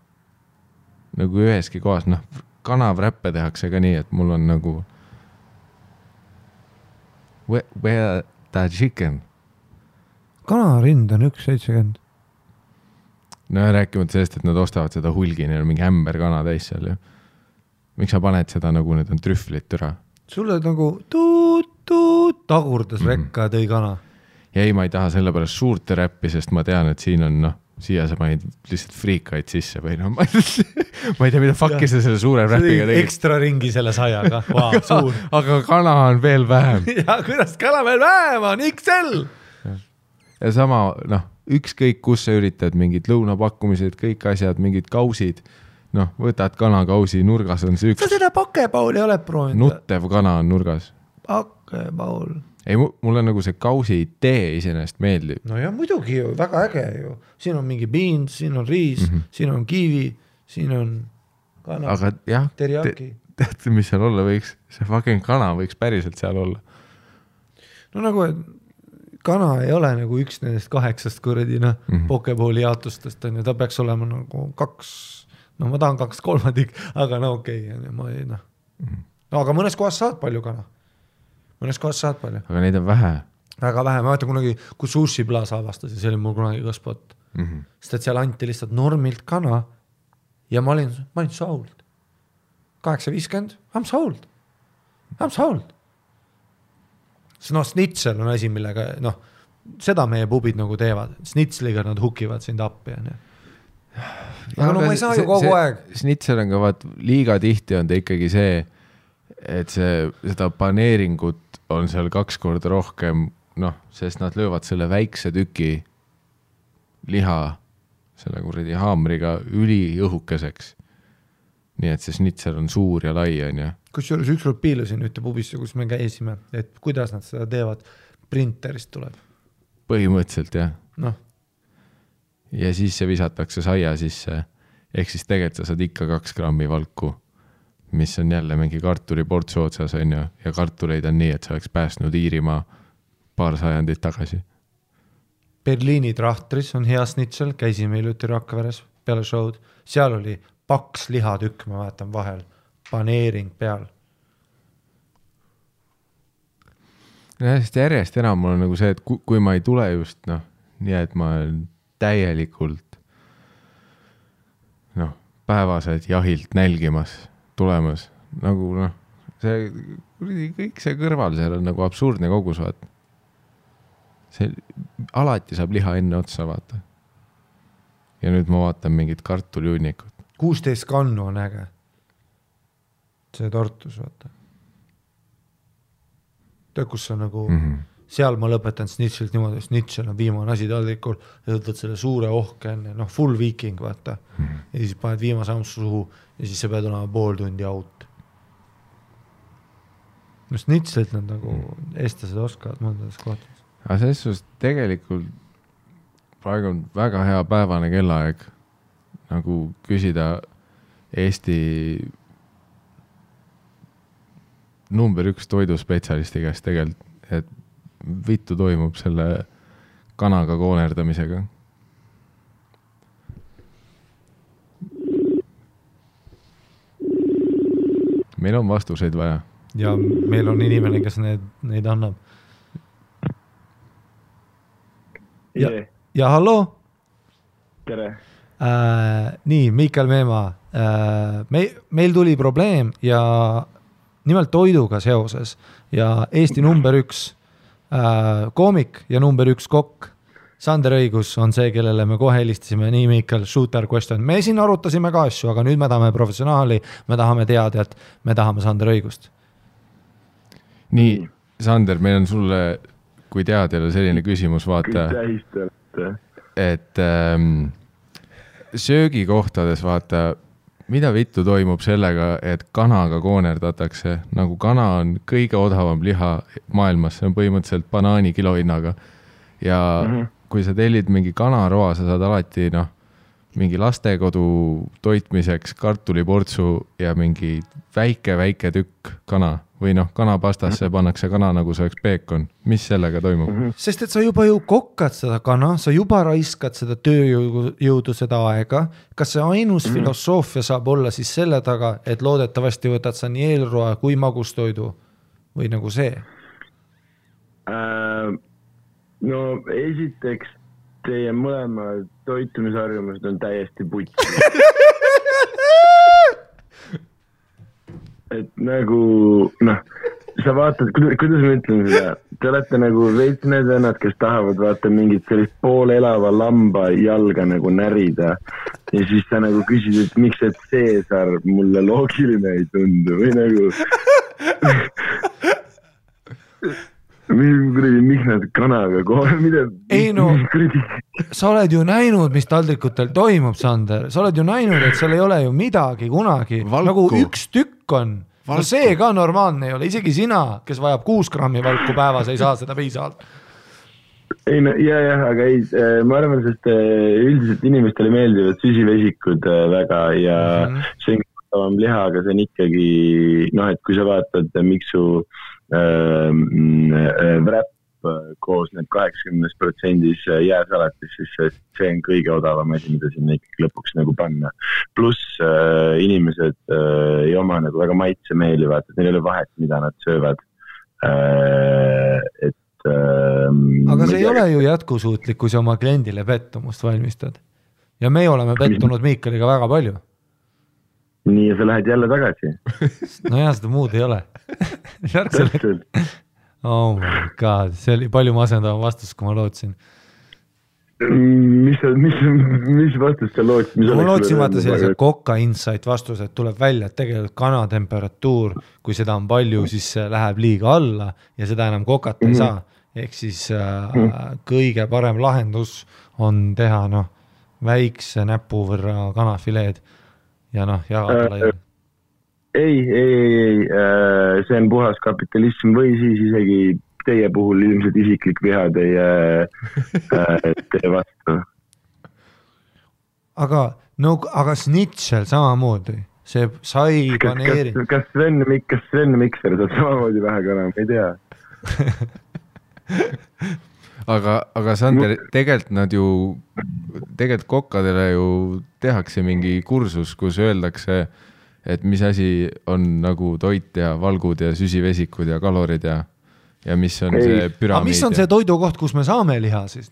Nagu üheski kohas, kanavräppe tehakse ka nii, et mul on nagu where the chicken? Kanarind on 1.70. No rääkimata sellest, et nad ostavad seda hulgi, neil on mingi ämber kana täis seal ju. Miks sa paned seda nagu need on trühvlit türa? Sulle nagu tagurdas rekka ja tõi kana. Ja ei, ma ei taha selle pärast suurte räppi, sest ma tean, et siin on siia sa panid lihtsalt friikaid sisse või ma ei tea, mida fuck'i sa selle suure räpiga tegid. Ekstra ringi selle sajaga. Wow, suur. Aga kana on veel vähem. Ja kuidas kana veel vähem on? XL! ja sama, noh, ükskõik kus sa üritad, mingid lõunapakkumised, kõik asjad, mingid kausid, noh, võtad kanakausi, nurgas on see üks. Sa seda pakepauli oled proovinud? Nuttev kana on nurgas. Pakepaul. Ei, mulle nagu see kausi idee iseenesest meeldib. No ja muidugi ju, väga äge ju. Siin on mingi beans, siin on riis, siin on kiivi, siin on kana, aga jah, teriyaki. Teate, mis seal olla võiks? See fucking kana võiks päriselt seal olla. No nagu, et kana ei ole nagu üks nendest 8 kuradi, pokepooli jaotustest on ja ta peaks olema nagu 2, no ma tahan 2/3, aga no okei, ma ei, noh. No aga mõnes kohas saad palju kana. Mõnes kohas saad palju. Aga neid on vähe. Väga vähe, ma vaatan kunagi, kui Sushi Plaza avastas ja see oli mul kunagi ka spot. Sest et seal anti lihtsalt normilt kana ja ma olin sold. 8.50, I'm sold. No snitsel on asi, millega, noh, seda meie pubid nagu teevad. Snitsliga nad hukivad sind appi. Aga no ma ei saa ju kogu aeg. Snitsel on ka vaat, liiga tihti on ta ikkagi see, et seda paneeringut on seal 2 korda rohkem, noh, sest nad löövad selle väikse tüki liha selle kuradi haamriga üliõhukeseks. Nii et see snitsel on suur ja lai on ja. Kusjuures ükskord piilusin ühte pubisse, kus me käisime, et kuidas nad seda teevad, printerist tuleb. Põhimõtteliselt jah. Noh. Ja siis see visatakse saia sisse, ehk siis tegelikult sa saad ikka 2 grammi valku, mis on jälle mingi kartuliportsu otsas on ju, ja kartuleid on nii, et sa oleks pääsnud Iirimaa paar sajandit tagasi. Berliini trahtris on hea snitsel, käisime iluti Rakveres peale show'd, seal oli paks lihatükk, ma vaatan vahel, paneering peal. Ja sest järjest enam mul on nagu see, et kui ma ei tule just, noh, nii et ma olen täielikult, noh, päevased jahilt nälgimas tulemas, nagu noh, see kõik see kõrval seal on nagu absurdne kogus, vaata. See alati saab liha enne otsa, vaata. Ja nüüd ma vaatan mingit kartuliunnikut. 16 kannu on äge. See tortus, vaata. Tead, kus on nagu, seal ma lõpetan snitšelt niimoodi, snitšel on viimane asi taldrikul, ja võtad selle suure ohke enne, noh, full viiking, vaata. Ja siis paned viimase ampsu suhu ja siis sa pead olema pool tundi out. No snitšelt nad nagu eestlased oskavad mõndades kohtades. Aga selles suhtes tegelikult praegu on väga hea päevane kellaaeg nagu küsida Eesti number 1 toiduspetsialisti käest tegelikult, et vittu toimub selle kanaga koonerdamisega. Meil on vastuseid vaja. Ja meil on inimene, kes neid annab. Ja hallo? Tere. Nii, Mikael Meemaa. Meil tuli probleem ja nimelt toiduga seoses ja Eesti number 1 koomik ja number 1 kokk Sander Õigus on see, kellele me kohe helistasime. Nii, Mikael, shooter question. Me siin arutasime ka asju, aga nüüd me tahame professionaali, me tahame teada, et me tahame Sander Õigust. Nii, Sander, meil on sulle kui teadjale selline küsimus, vaata, et söögikohtades vaata, mida vittu toimub sellega, et kanaga koonerdatakse, nagu kana on kõige odavam liha maailmas, see on põhimõtteliselt banaani kilohinnaga ja kui sa tellid mingi kanaroa, sa saad alati, noh, mingi lastekodu toitmiseks kartuliportsu ja mingi väike tükk kana või noh, kanapastasse pannakse kana nagu see oleks peekon. Mis sellega toimub? Sest et sa juba ju kokkad seda kana, sa juba raiskad seda tööjõudu seda aega. Kas see ainus filosoofia saab olla siis selle taga, et loodetavasti võtad sa nii eelroa kui magustoidu või nagu see? No esiteks teie mõlema toitumisharjumused on täiesti putsi. Et nagu, noh, sa vaatad, kuidas ma ütlen seda, te olete nagu veits need vennad, kes tahavad vaata mingit sellist poolelava lamba jalga nagu närida ja siis sa nagu küsid, et miks et Caesar mulle loogiline ei tundu või nagu miks nad kanaga kohe, mida? Ei no, sa oled ju näinud, mis taldrikutel toimub, Sander. Sa oled ju näinud, et seal ei ole ju midagi kunagi. Valku. Nagu üks tükk on. No see ka normaalne ei ole. Isegi sina, kes vajab 6 grammi valku päevas, ei saa seda piisavalt. Ei no, aga ei, ma arvan, sest üldiselt inimestele meeldivad süsivesikud väga ja see on liha, aga see on ikkagi, et kui sa vaatad, miks su wrap koosneb 80% jääsalatis, siis see on kõige odavam asi, mida sinna ikkagi lõpuks nagu panna. Pluss inimesed ei oma nagu väga maitsemeeli, vaata, et neil ei ole vahet, mida nad söövad. Aga see ei ole ju jätkusuutlik, kui sa oma kliendile pettumust valmistad. Ja me oleme pettunud Miikaliga väga palju. Nii, ja sa lähed jälle tagasi. No jah, seda muud ei ole. Oh my god, see oli palju masendavam vastus, kui ma lootsin. Mis vastus sa lootsid? Ma lootsin vaata sellise Kokka Insight vastus, et tuleb välja, et tegelikult kanatemperatuur, kui seda on palju, siis läheb liiga alla ja seda enam kokat ei saa. Ehk siis kõige parem lahendus on teha väikse näpu võrra kanafileed ja jagada laiali. Ei, see on puhas kapitalism või siis isegi teie puhul ilmselt isiklik viha teie vastu. Aga snitšel samamoodi, see sai paneeri. Kas Sven Mikser saab samamoodi vähe kana, ma ei tea. aga Sander, tegelikult kokkadele ju tehakse mingi kursus, kus öeldakse, et mis asi on nagu toit ja valgud ja süsivesikud ja kalorid ja mis on see püramiid. Aga mis on see toidukoht, kus me saame liha siis,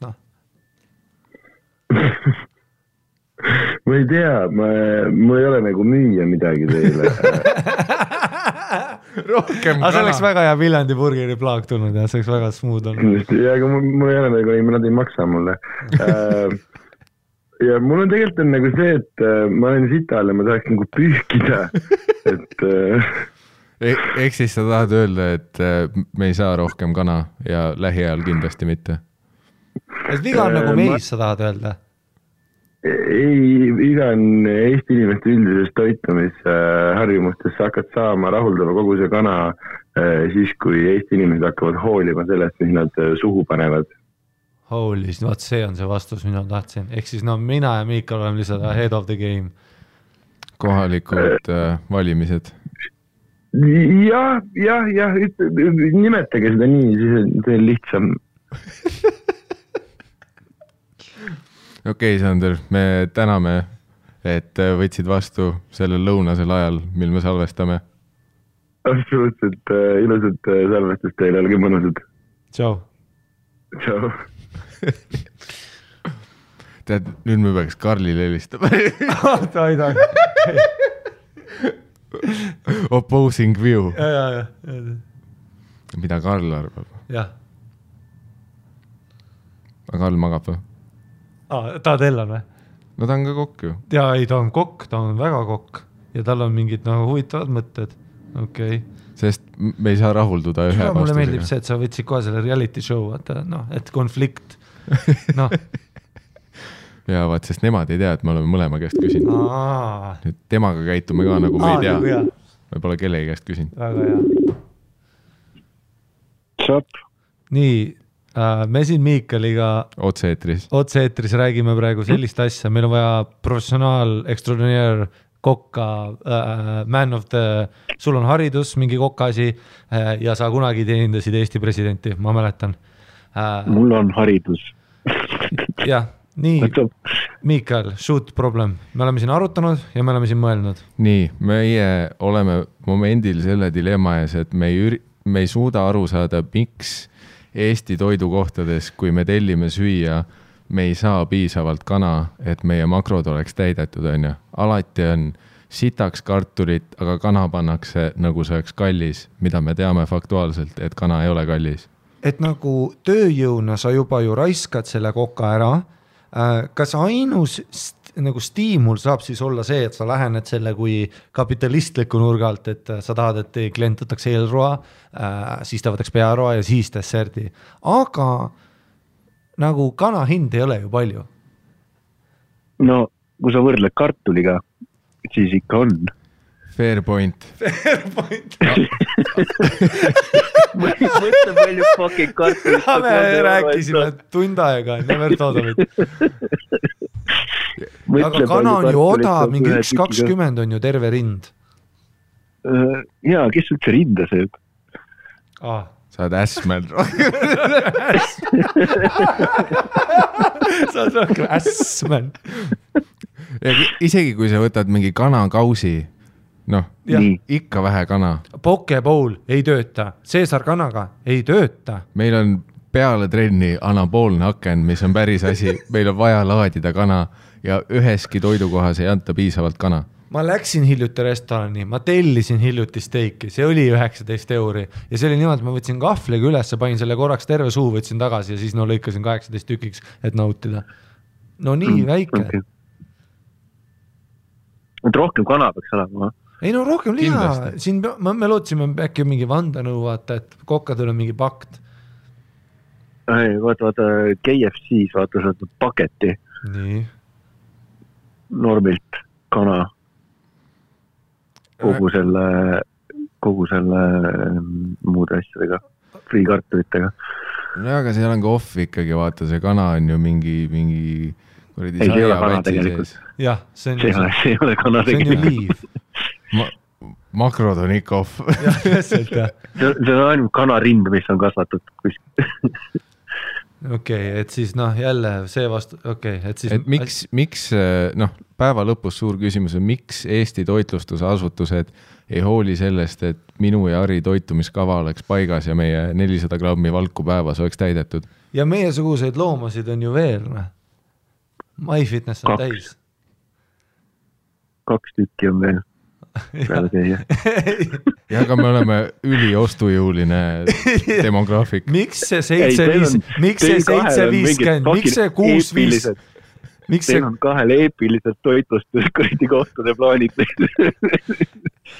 Ma ei tea, mul ei ole nagu müüa midagi teile. Rohkem kana. See oleks väga hea Viljandi burgeri plaag tulnud ja see oleks väga smooth olnud. Ja, aga mul ei ole nagu, nad ei maksa mulle. Ja mul on tegelikult nagu see, et ma olen sital ja ma tahaks nagu pühkida. Eks siis sa tahad öelda, et me ei saa rohkem kana ja lähiajal kindlasti mitte? Et viga on nagu meis, sa tahad öelda? Ei, viga on Eesti inimeste üldises toitumisharjumustes. Sa hakkad saama rahuldava kogu see kana siis, kui Eesti inimesed hakkavad hoolima sellest, mis nad suhu panevad. Holy, vaat see on see vastus, mida tahtsin. Ehk siis mina ja Miikal oleme lihtsalt head of the game. Kohalikud valimised. Ja, nimetage seda nii, siis see on lihtsam. Okei, Sander, me täname, et võtsid vastu sellel lõunasel ajal, mil me salvestame. Absoluutselt ilusat salvestust teile, olge mõnusad. Tšau. Tšau. Tead, nüüd me peaks Karlile helistama. Ta ei taha. Opposing view. Ja. Mida Karl arvab? Jah. Aga Karl magab või? Ta tellan või? No ta on ka kokk ju. Ja ei, ta on kokk, ta on väga kokk. Ja tal on mingid huvitavad mõtted. Okei. Sest me ei saa rahulduda ühe vastusega. Mulle meeldib see, et sa võtsid kohe selle reality show, et konflikt. Ja vaat, sest nemad ei tea, et me oleme mõlema käest küsinud. Nüüd temaga käitume ka nagu me ei tea. Me pole kellegi käest küsinud. Väga hea. Tšap. Nii, me siin Miikaliga otse-eetris räägime praegu sellist asja. Meil on vaja professionaal, extraordinaire kokka, man of the, sul on haridus, mingi kokkaasi ja sa kunagi teenindasid Eesti presidenti, ma mäletan. Mul on haridus. Jah, nii, Miikal, shoot problem. Me oleme siin arutanud ja me oleme siin mõelnud. Nii, meie oleme momendil selle dilemma ees, et me ei suuda aru saada, miks Eesti toidukohtades, kui me tellime süüa, me ei saa piisavalt kana, et meie makrod oleks täidetud, on ju. Alati on sitaks kartulit, aga kana pannakse nagu see oleks kallis, mida me teame faktuaalselt, et kana ei ole kallis. Et nagu tööjõuna sa juba ju raiskad selle koka ära, kas ainus nagu stiimul saab siis olla see, et sa lähened selle kui kapitalistliku nurga alt, et sa tahad, et klient võtaks eelroa, siis ta võtaks pearoa ja siis desserdi. Aga nagu kana hind ei ole ju palju. No, kui sa võrdled kartuliga, siis ikka on. Fair point. Mõtle palju fucking kartulit. Me rääkisime tund aega, never thought of it. Aga kana on ju odav, mingi 1.20 on ju terve rind. Jaa, kes üldse rinda sööb? Sa oled ässmäll. Sa oled rohkem ässmäll. Isegi kui sa võtad mingi kanakausi, noh, ikka vähe kana. Pokebowl ei tööta, Caesar kanaga ei tööta. Meil on peale trenni anaboolne aken, mis on päris asi. Meil on vaja laadida kana ja üheski toidukohas ei anta piisavalt kana. Ma läksin hiljuti restorani, ma tellisin hiljuti steiki, see oli 19 € ja see oli niimoodi, ma võtsin kahvliga üles, panin selle korraks terve suu, võtsin tagasi ja siis lõikasin 18 tükiks, et nautida. No nii väike. Okay. Et rohkem kana peaks olema. Ei no rohkem liha, siin me lootsime äkki mingi vandanõu vaata, et kokkadel on mingi pakt. Ei, vaata, KFC-s vaata seda paketi. Nii. Normilt kana. Kogu selle muude asjadega, friikartulitega. No aga seal on ka off ikkagi, vaata, see kana on ju mingi ei, see ei ole kana tegelikult. Jah, see ei ole kana See tegelikult. on ju liiv. Makrod on ikka off. Jah, täpselt, jah. See on ainult kanarind, mis on kasvatud kuskil. Okei, et siis jälle see vastu, et siis... Et miks päeva lõpus suur küsimus on, miks Eesti toitlustusasutused ei hooli sellest, et minu ja Ari toitumiskava oleks paigas ja meie 400 grammi valku päevas oleks täidetud? Ja meiesuguseid loomasid on ju veel, MyFitness on täis. 2 tükki on veel. Ja, aga me oleme üliostujõuline demograafik. Miks see 750, miks see 650, miks see on 2 eepilised toitlustus kõrdi kohtade plaanid.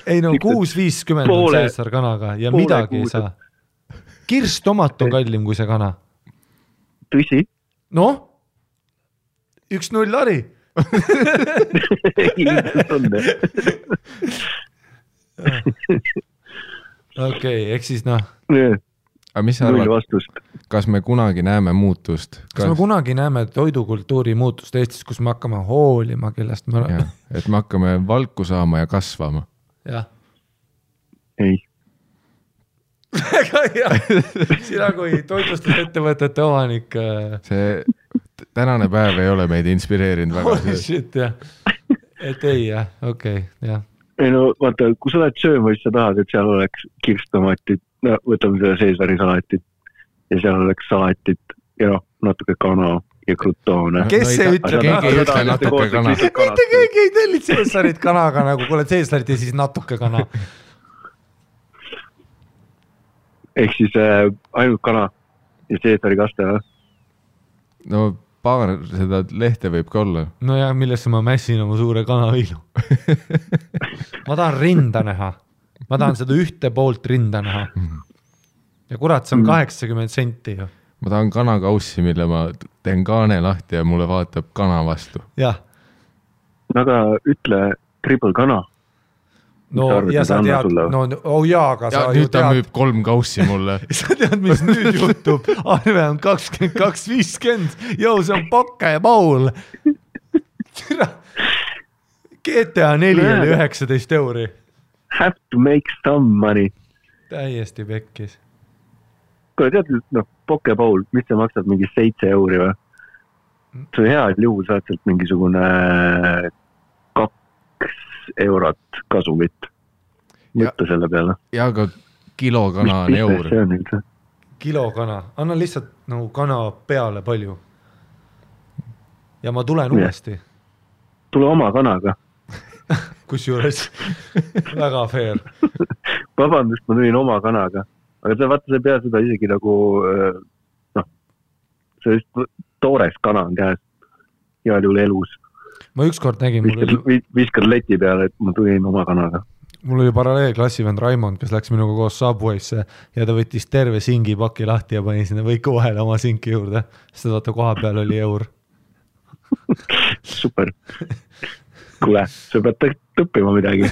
Ei no 650 on Caesar kanaga ja midagi ei saa. Kirstomat on kallim kui see kana. Tõsi? Noh, 1-0 Ari. Okei, eks siis Aga mis sa arvad, kas me kunagi näeme muutust? Kas me kunagi näeme toidukultuuri muutust Eestis, kus me hakkame hoolima, kellest me oleme? Et me hakkame valku saama ja kasvama. Jah. Ei. Väga hea. Sina kui toitlustusettevõtete omanik. See tänane päev ei ole meid inspireerinud väga. Holy shit, jah. Et ei, jah, okei, jah. Ei no, vaata, kui sa oled sööma, siis sa tahad, et seal oleks kirstomatid, võtame selle Caesari salatit ja seal oleks salatit ja natuke kana ja krutoone. Kes see ütleb? Keegi ei ütle natuke kana. Mitte keegi ei tellid Caesarit kanaga, nagu kuule Caesarit ja siis natuke kana. Ehk siis ainult kana ja Caesari kaste, või? No paar seda lehte võib ka olla. No ja millesse ma mässin oma suure kanaviilu. Ma tahan rinda näha. Ma tahan seda ühte poolt rinda näha. Ja kurat, see on 80 senti ju. Ma tahan kanakaussi, mille ma teen kaane lahti ja mulle vaatab kana vastu. Jah. Aga ütle triple kana. No ja sa tead, aga sa ju nüüd ta müüb 3 kaussi mulle. Sa tead, mis nüüd juhtub. Arve on 22.50. Jou, see on Pokke ja Paul. GTA 4 oli 19 €. Have to make some money. Täiesti pekkis. Kui tead, Pokke Paul, mis see maksab mingi 7 € või? See hea juhul saad sealt mingisugune 2 eurot kasumit. Mõtta selle peale. Ja aga kilokana on €1. Kilokana. Anna lihtsalt nagu kana peale palju. Ja ma tulen uuesti. Tule oma kanaga. Kus juures? Väga fair. Vabandust, ma tulin oma kanaga. Aga sa vaata, sa ei pea seda isegi nagu, see toores kana on käes. heal juhul elus. ma ükskord nägin, viskad leti peale, et ma tulin oma kanaga. Mul oli paralleelklassivend Raimond, kes läks minuga koos Subway'sse ja ta võttis terve singipaki lahti ja pani sinna võiku vahele oma sinki juurde, sest vaata koha peal oli eur. Super. Kuule, sa pead õppima midagi.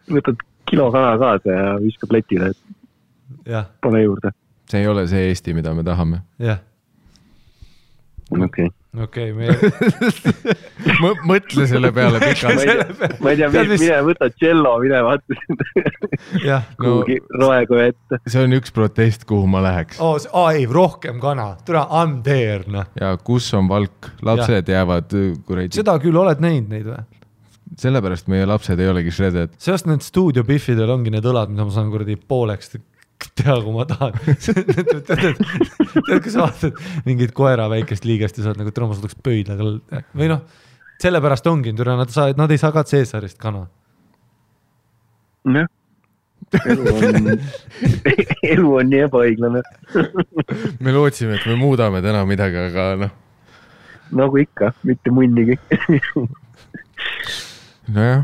Võtad kilo kana kaasa ja viskad letile, et pane juurde. See ei ole see Eesti, mida me tahame. Jah. Okei. Mõtle selle peale pikalt. Ma ei tea, mine võta cello, mine vaatasin kuhugi roekoja ette. See on üks protest, kuhu ma läheks. Ei, rohkem kana. Tule, I'm there. No. Ja kus on valk? Lapsed jäävad kuradi. Seda küll oled näinud neid või? Sellepärast meie lapsed ei olegi shredded. Seast need stuudiobiffidel ongi need õlad, mida ma saan kuradi pooleks teha, kui ma tahan. Tead, kui sa vaatad mingid koera väikest liigest ja saad nagu trommas võtaks pöidlaga. Või noh, sellepärast ongi, nad ei saa ka Caesarist kana. Jah. Elu on nii ebaõiglane. Me lootsime, et me muudame täna midagi, aga noh. Nagu ikka, mitte munnigi. Nojah,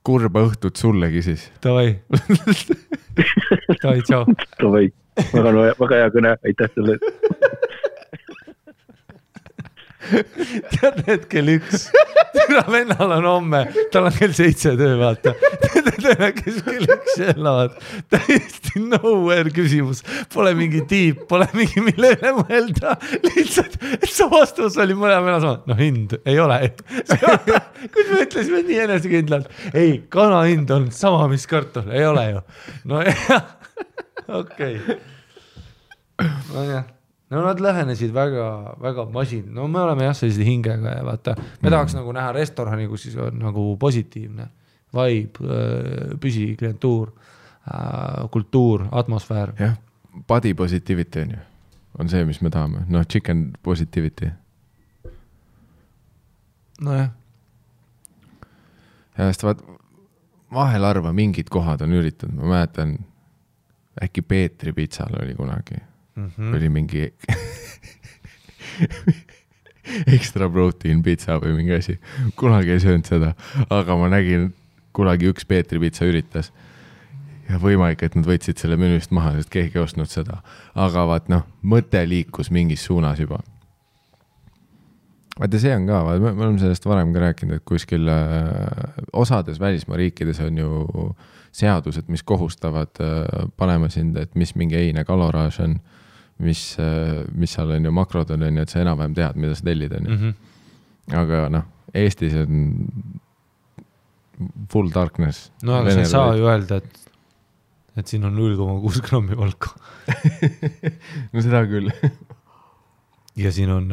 kurba õhtut sullegi siis. Davai. Davai, tšau. Davai. Väga hea kõne, aitäh selle. Tead need kell 1. Türa vennal on homme, tal on kell 7 töö, vaata. Tead, kes kell 1 elavad. Täiesti nowhere küsimus. Pole mingi tiip, pole mingi mille üle mõelda. Lihtsalt, et see vastus oli mõne venna sama. No hind ei ole. Kus me ütlesime nii enesekindlalt. Ei, kana hind on sama, mis kartul. Ei ole ju. No jah. Okei. No jah. No nad lähenesid väga, väga masin. No me oleme jah sellise hingega ja vaata, me tahaks nagu näha restorani, kus siis on nagu positiivne vibe, püsiklientuur, kultuur, atmosfäär. Jah, body positivity on ju. On see, mis me tahame. No chicken positivity. No jah. Ja sest vaat, vahel arva mingid kohad on üritanud. Ma mäletan, äkki Peetri pitsal oli kunagi. Oli mingi extra protein pizza või mingi asi. Kunagi ei söönud seda, aga ma nägin kunagi üks Peetri pizza üritas ja võimalik, et nad võtsid selle menüüst maha, sest keegi ei ostnud seda. Aga vaat noh, mõte liikus mingis suunas juba. Vaata see on ka, me oleme sellest varem ka rääkinud, et kuskil osades välismaa riikides on ju seadused, mis kohustavad panema sind, et mis mingi eine kaloraaž on, mis seal on ju makrod on, et sa enam-vähem tead, mida sa tellid on. Aga noh, Eestis on full darkness. No aga sa ei saa ju öelda, et siin on 0,6 grammi valku. No seda küll. Ja siin on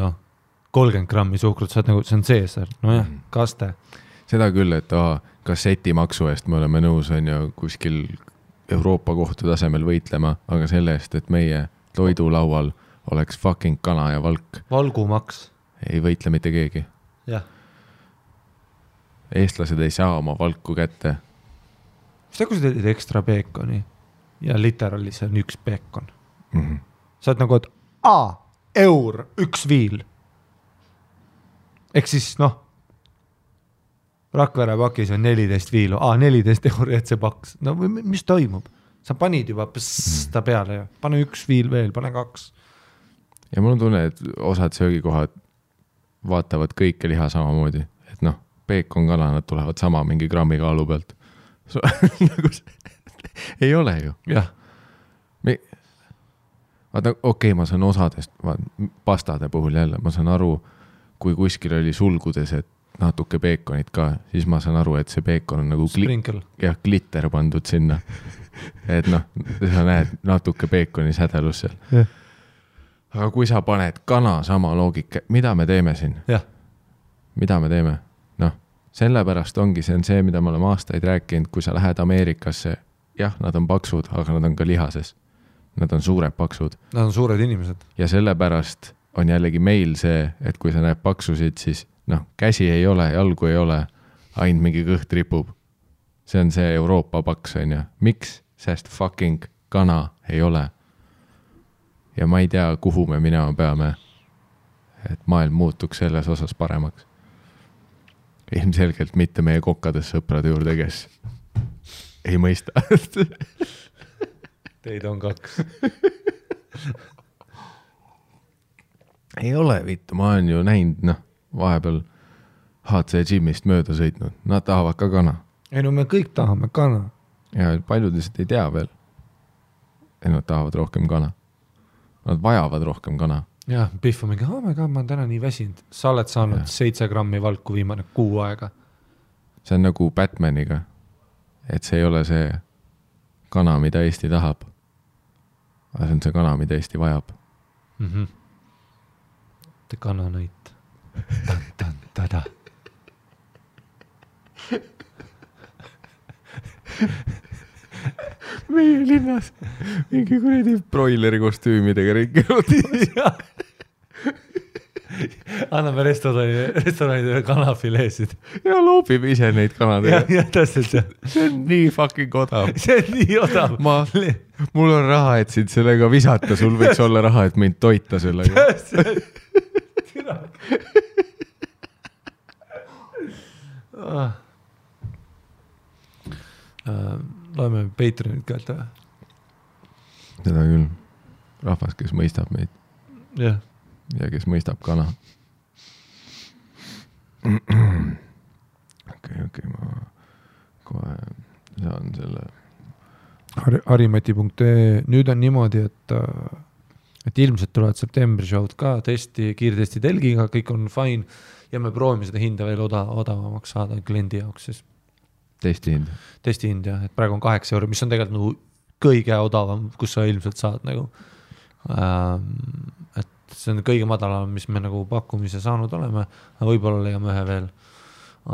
30 grammi suhkrut, sa nagu, see on Caesar. No jah, kaste. Seda küll, et kasseti maksu eest me oleme nõus on ju kuskil Euroopa kohtu tasemel võitlema, aga selle eest, et meie toidulaual oleks fucking kana ja valk. Valgumaks. Ei võitle mitte keegi. Jah. Eestlased ei saa oma valku kätte. Seda kui sa teed ekstra peekoni ja literaali see on üks peekon. Sa oled nagu, et eur, üks viil. Ehk siis Rakvere pakis on 14 viilu. 14 euri, et see paks. No mis toimub? Sa panid juba ta peale ja pane üks viil veel, pane 2. Ja mul on tunne, et osad söögikohad vaatavad kõike liha samamoodi. Et peekon kana, nad tulevad sama mingi grammi kaalu pealt. Ei ole ju. Jah. Vaata, okei, ma saan osadest, pastade puhul jälle, ma saan aru, kui kuskil oli sulgudes, et natuke peekonit ka, siis ma saan aru, et see peekon on nagu glitter pandud sinna. Et sa näed natuke peekoni sädelus seal. Yeah. Aga kui sa paned kana sama loogika, mida me teeme siin? Yeah. Mida me teeme? Sellepärast ongi, see on see, mida me oleme aastaid rääkinud, kui sa lähed Ameerikasse, jah, nad on paksud, aga nad on ka lihases. Nad on suured paksud. Nad on suured inimesed. Ja sellepärast on jällegi meil see, et kui sa näed paksusid, siis käsi ei ole, jalgu ei ole, ainult mingi kõht ripub. See on see Euroopa paks, on ju. Miks? Sest fucking kana ei ole. Ja ma ei tea, kuhu me minema peame. et maailm muutuks selles osas paremaks. Ilmselgelt mitte meie kokkades sõprade juurde, kes ei mõista. Teid on 2. Ei ole vittu, ma olen ju näinud, vahepeal HC Gymist mööda sõitnud, nad tahavad ka kana. Ei no me kõik tahame kana. Ja paljud lihtsalt ei tea veel, et nad tahavad rohkem kana. Nad vajavad rohkem kana. Jah, Pihv on mingi, ma olen täna nii väsinud. Sa oled saanud 7 grammi valku viimane 6 aega. See on nagu Batmaniga, et see ei ole see kana, mida Eesti tahab. Aga see on see kana, mida Eesti vajab. Te kananõit. Tan-tan-tada. Meie linnas mingi kuradi broileri kostüümidega ringelud. Anname restoranidele kanafileesid. Ja loobime ise neid kanadega. Ja täpselt see. See on nii fucking odav. See on nii odav. Mul on raha, et sind sellega visata. Sul võiks olla raha, et mind toita sellega. Loeme Patreonit käelt või? Seda küll. Rahvas, kes mõistab meid. Jah. Ja kes mõistab kana. Okei, ma kohe saan selle. Harimati.ee. Nüüd on niimoodi, et ilmselt tulevad septembri show'd ka kiirtesti telgiga, kõik on fine ja me proovime seda hinda veel odavamaks saada kliendi jaoks siis. Testi hind, jah, et praegu on 8 €, mis on tegelikult nagu kõige odavam, kus sa ilmselt saad nagu. Et see on kõige madalam, mis me nagu pakkumise saanud oleme, võib-olla leiame ühe veel.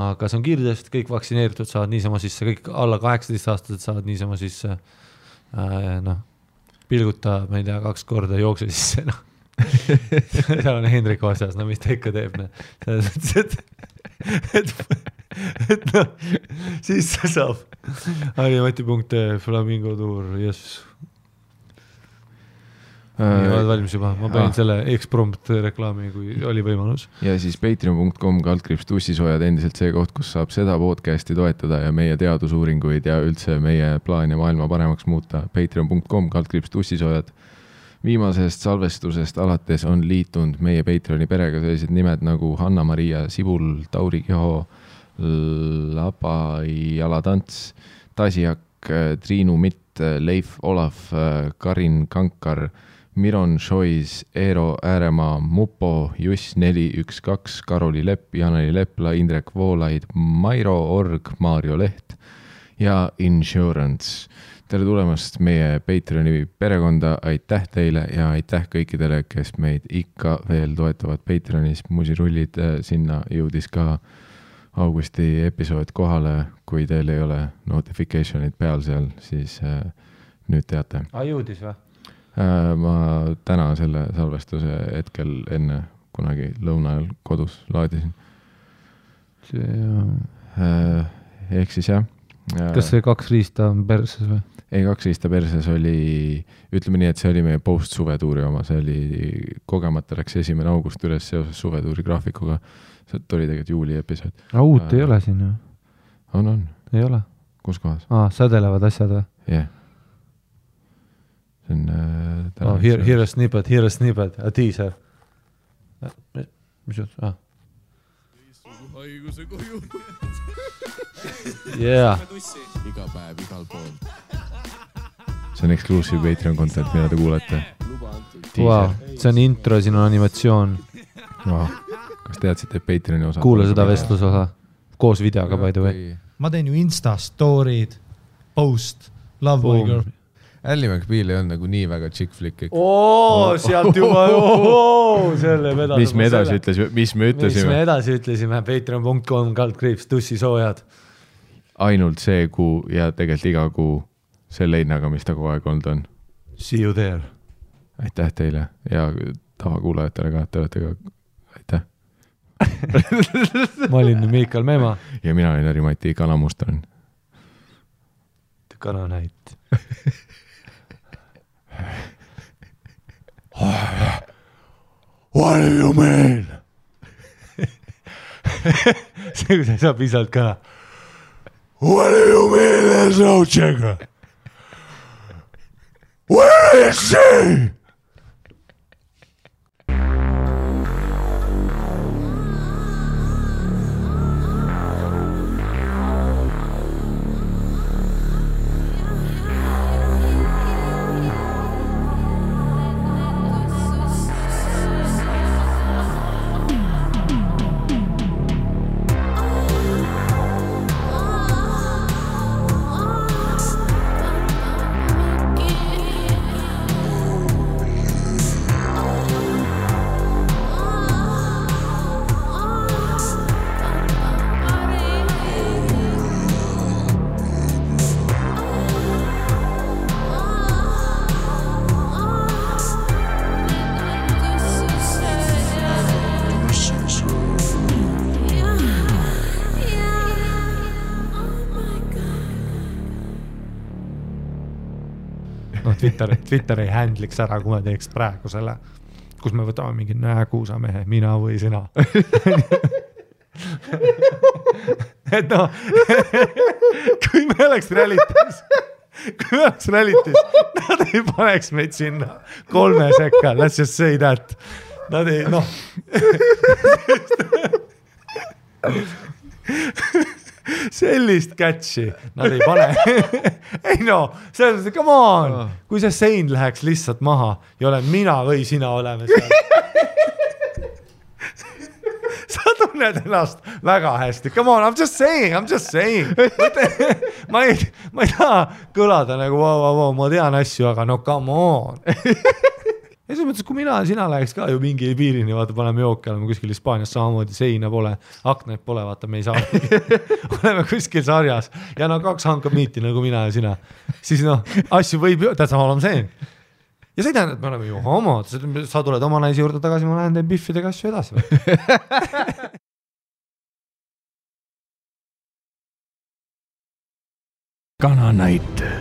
Aga see on kiirtest, kõik vaktsineeritud saavad niisama sisse, kõik alla 18-aastased saavad niisama sisse. Pilguta, ma ei tea, 2 korda jookse sisse. Seal on Hendrik vastas, mis ta ikka teeb. Siis saab Harimati.ee Flamingo Tour, yes. Oled valmis juba, ma panin selle X-prompt reklaami, kui oli võimalus. Ja siis patreon.com/tussisoojad endiselt see koht, kus saab seda podcasti toetada ja meie teadusuuringuid ja üldse meie plaani maailma paremaks muuta. Patreon.com/tussisoojad. Viimasest salvestusest alates on liitunud meie Patreoni perega sellised nimed nagu Hanna-Maria Sibul, Tauri Kiho, Laba Jalatants, Tasiak, Triinu Mitt, Leif Olaf, Karin Kankar, Miron Šois, Eero Ääremaa, Mupo, Juss 412, Karoli Lepp, Janeli Lepla, Indrek Voolaid, Mairo Org, Maarjo Leht ja Insurance. Tere tulemast meie Patreoni perekonda, aitäh teile ja aitäh kõikidele, kes meid ikka veel toetavad Patreonis. Musirullid, sinna jõudis ka augusti episood kohale, kui teil ei ole notificationid peal seal, siis nüüd teate. Jõudis või? Ma täna selle salvestuse hetkel enne kunagi lõuna ajal kodus laadisin. Ehk siis jah. Kas see 2 riista on perses või? Ei, 2 riista perses oli, ütleme nii, et see oli meie post-suvetuuri oma, see oli kogemata läks 1. august üles seoses suvetuuri graafikuga. See oli tegelikult juuli episood. Uut ei ole siin ju? On. Ei ole? Kus kohas? Sädelevad asjad või? Jah. See on... Here a snippet, a teaser. Mis jutt? Haiguse koju. Yeah. Iga päev, igal pool. See on exclusive Patreon content, mida te kuulete. Wow, see on intro, siin on animatsioon. Wow. Kas teadsid, et Patreoni osa? Kuule seda vestlusosa. Koos videoga by the way. Ma teen ju Insta story'd, post, love my girl. Ally McBeal ei olnud nagu nii väga chick flick. Sealt juba, selle vedada. Mis me edasi ütlesime? Patreon.com/tussisoojad. Ainult see kuu ja tegelikult iga kuu selle hinnaga, mis ta kogu aeg olnud on. See you there. Aitäh teile ja tavakuulajatele ka, te olete ka, aitäh. Ma olin Miikal Meema. Ja mina olin Harimati Kanamustan. Kananäit. What do you mean? see, kui sa ei saa pisalt kõla. What do you mean there's no chicken? Where is she? Twitter ei handliks ära, kui me teeks praegu selle, kus me võtame mingi kuusamehe, mina või sina. Et noh, kui me oleks realitis, nad ei paneks meid sinna 3 sekka, let's just say that. Nad ei, noh. Sellist catchi nad ei pane. Ei no, selles, come on, kui see sein läheks lihtsalt maha ja olen mina või sina oleme seal. Sa tunned ennast väga hästi. Come on, I'm just saying. Ma ei taha kõlada nagu, wow, ma tean asju, aga no come on. Ja selles mõttes, kui mina ja sina läheks ka ju mingi piirini, vaata, paneme jooki, oleme kuskil Hispaanias samamoodi, seina pole, aknaid pole, vaata, me ei saa. Oleme kuskil sarjas ja no 2 hankab miiti nagu mina ja sina. Siis noh, asju võib ju, tähtsam olema see. Ja see tähendab, et me oleme ju homod, sa tuled oma naisi juurde tagasi, ma lähen teen biffidega asju edasi. Kananäite.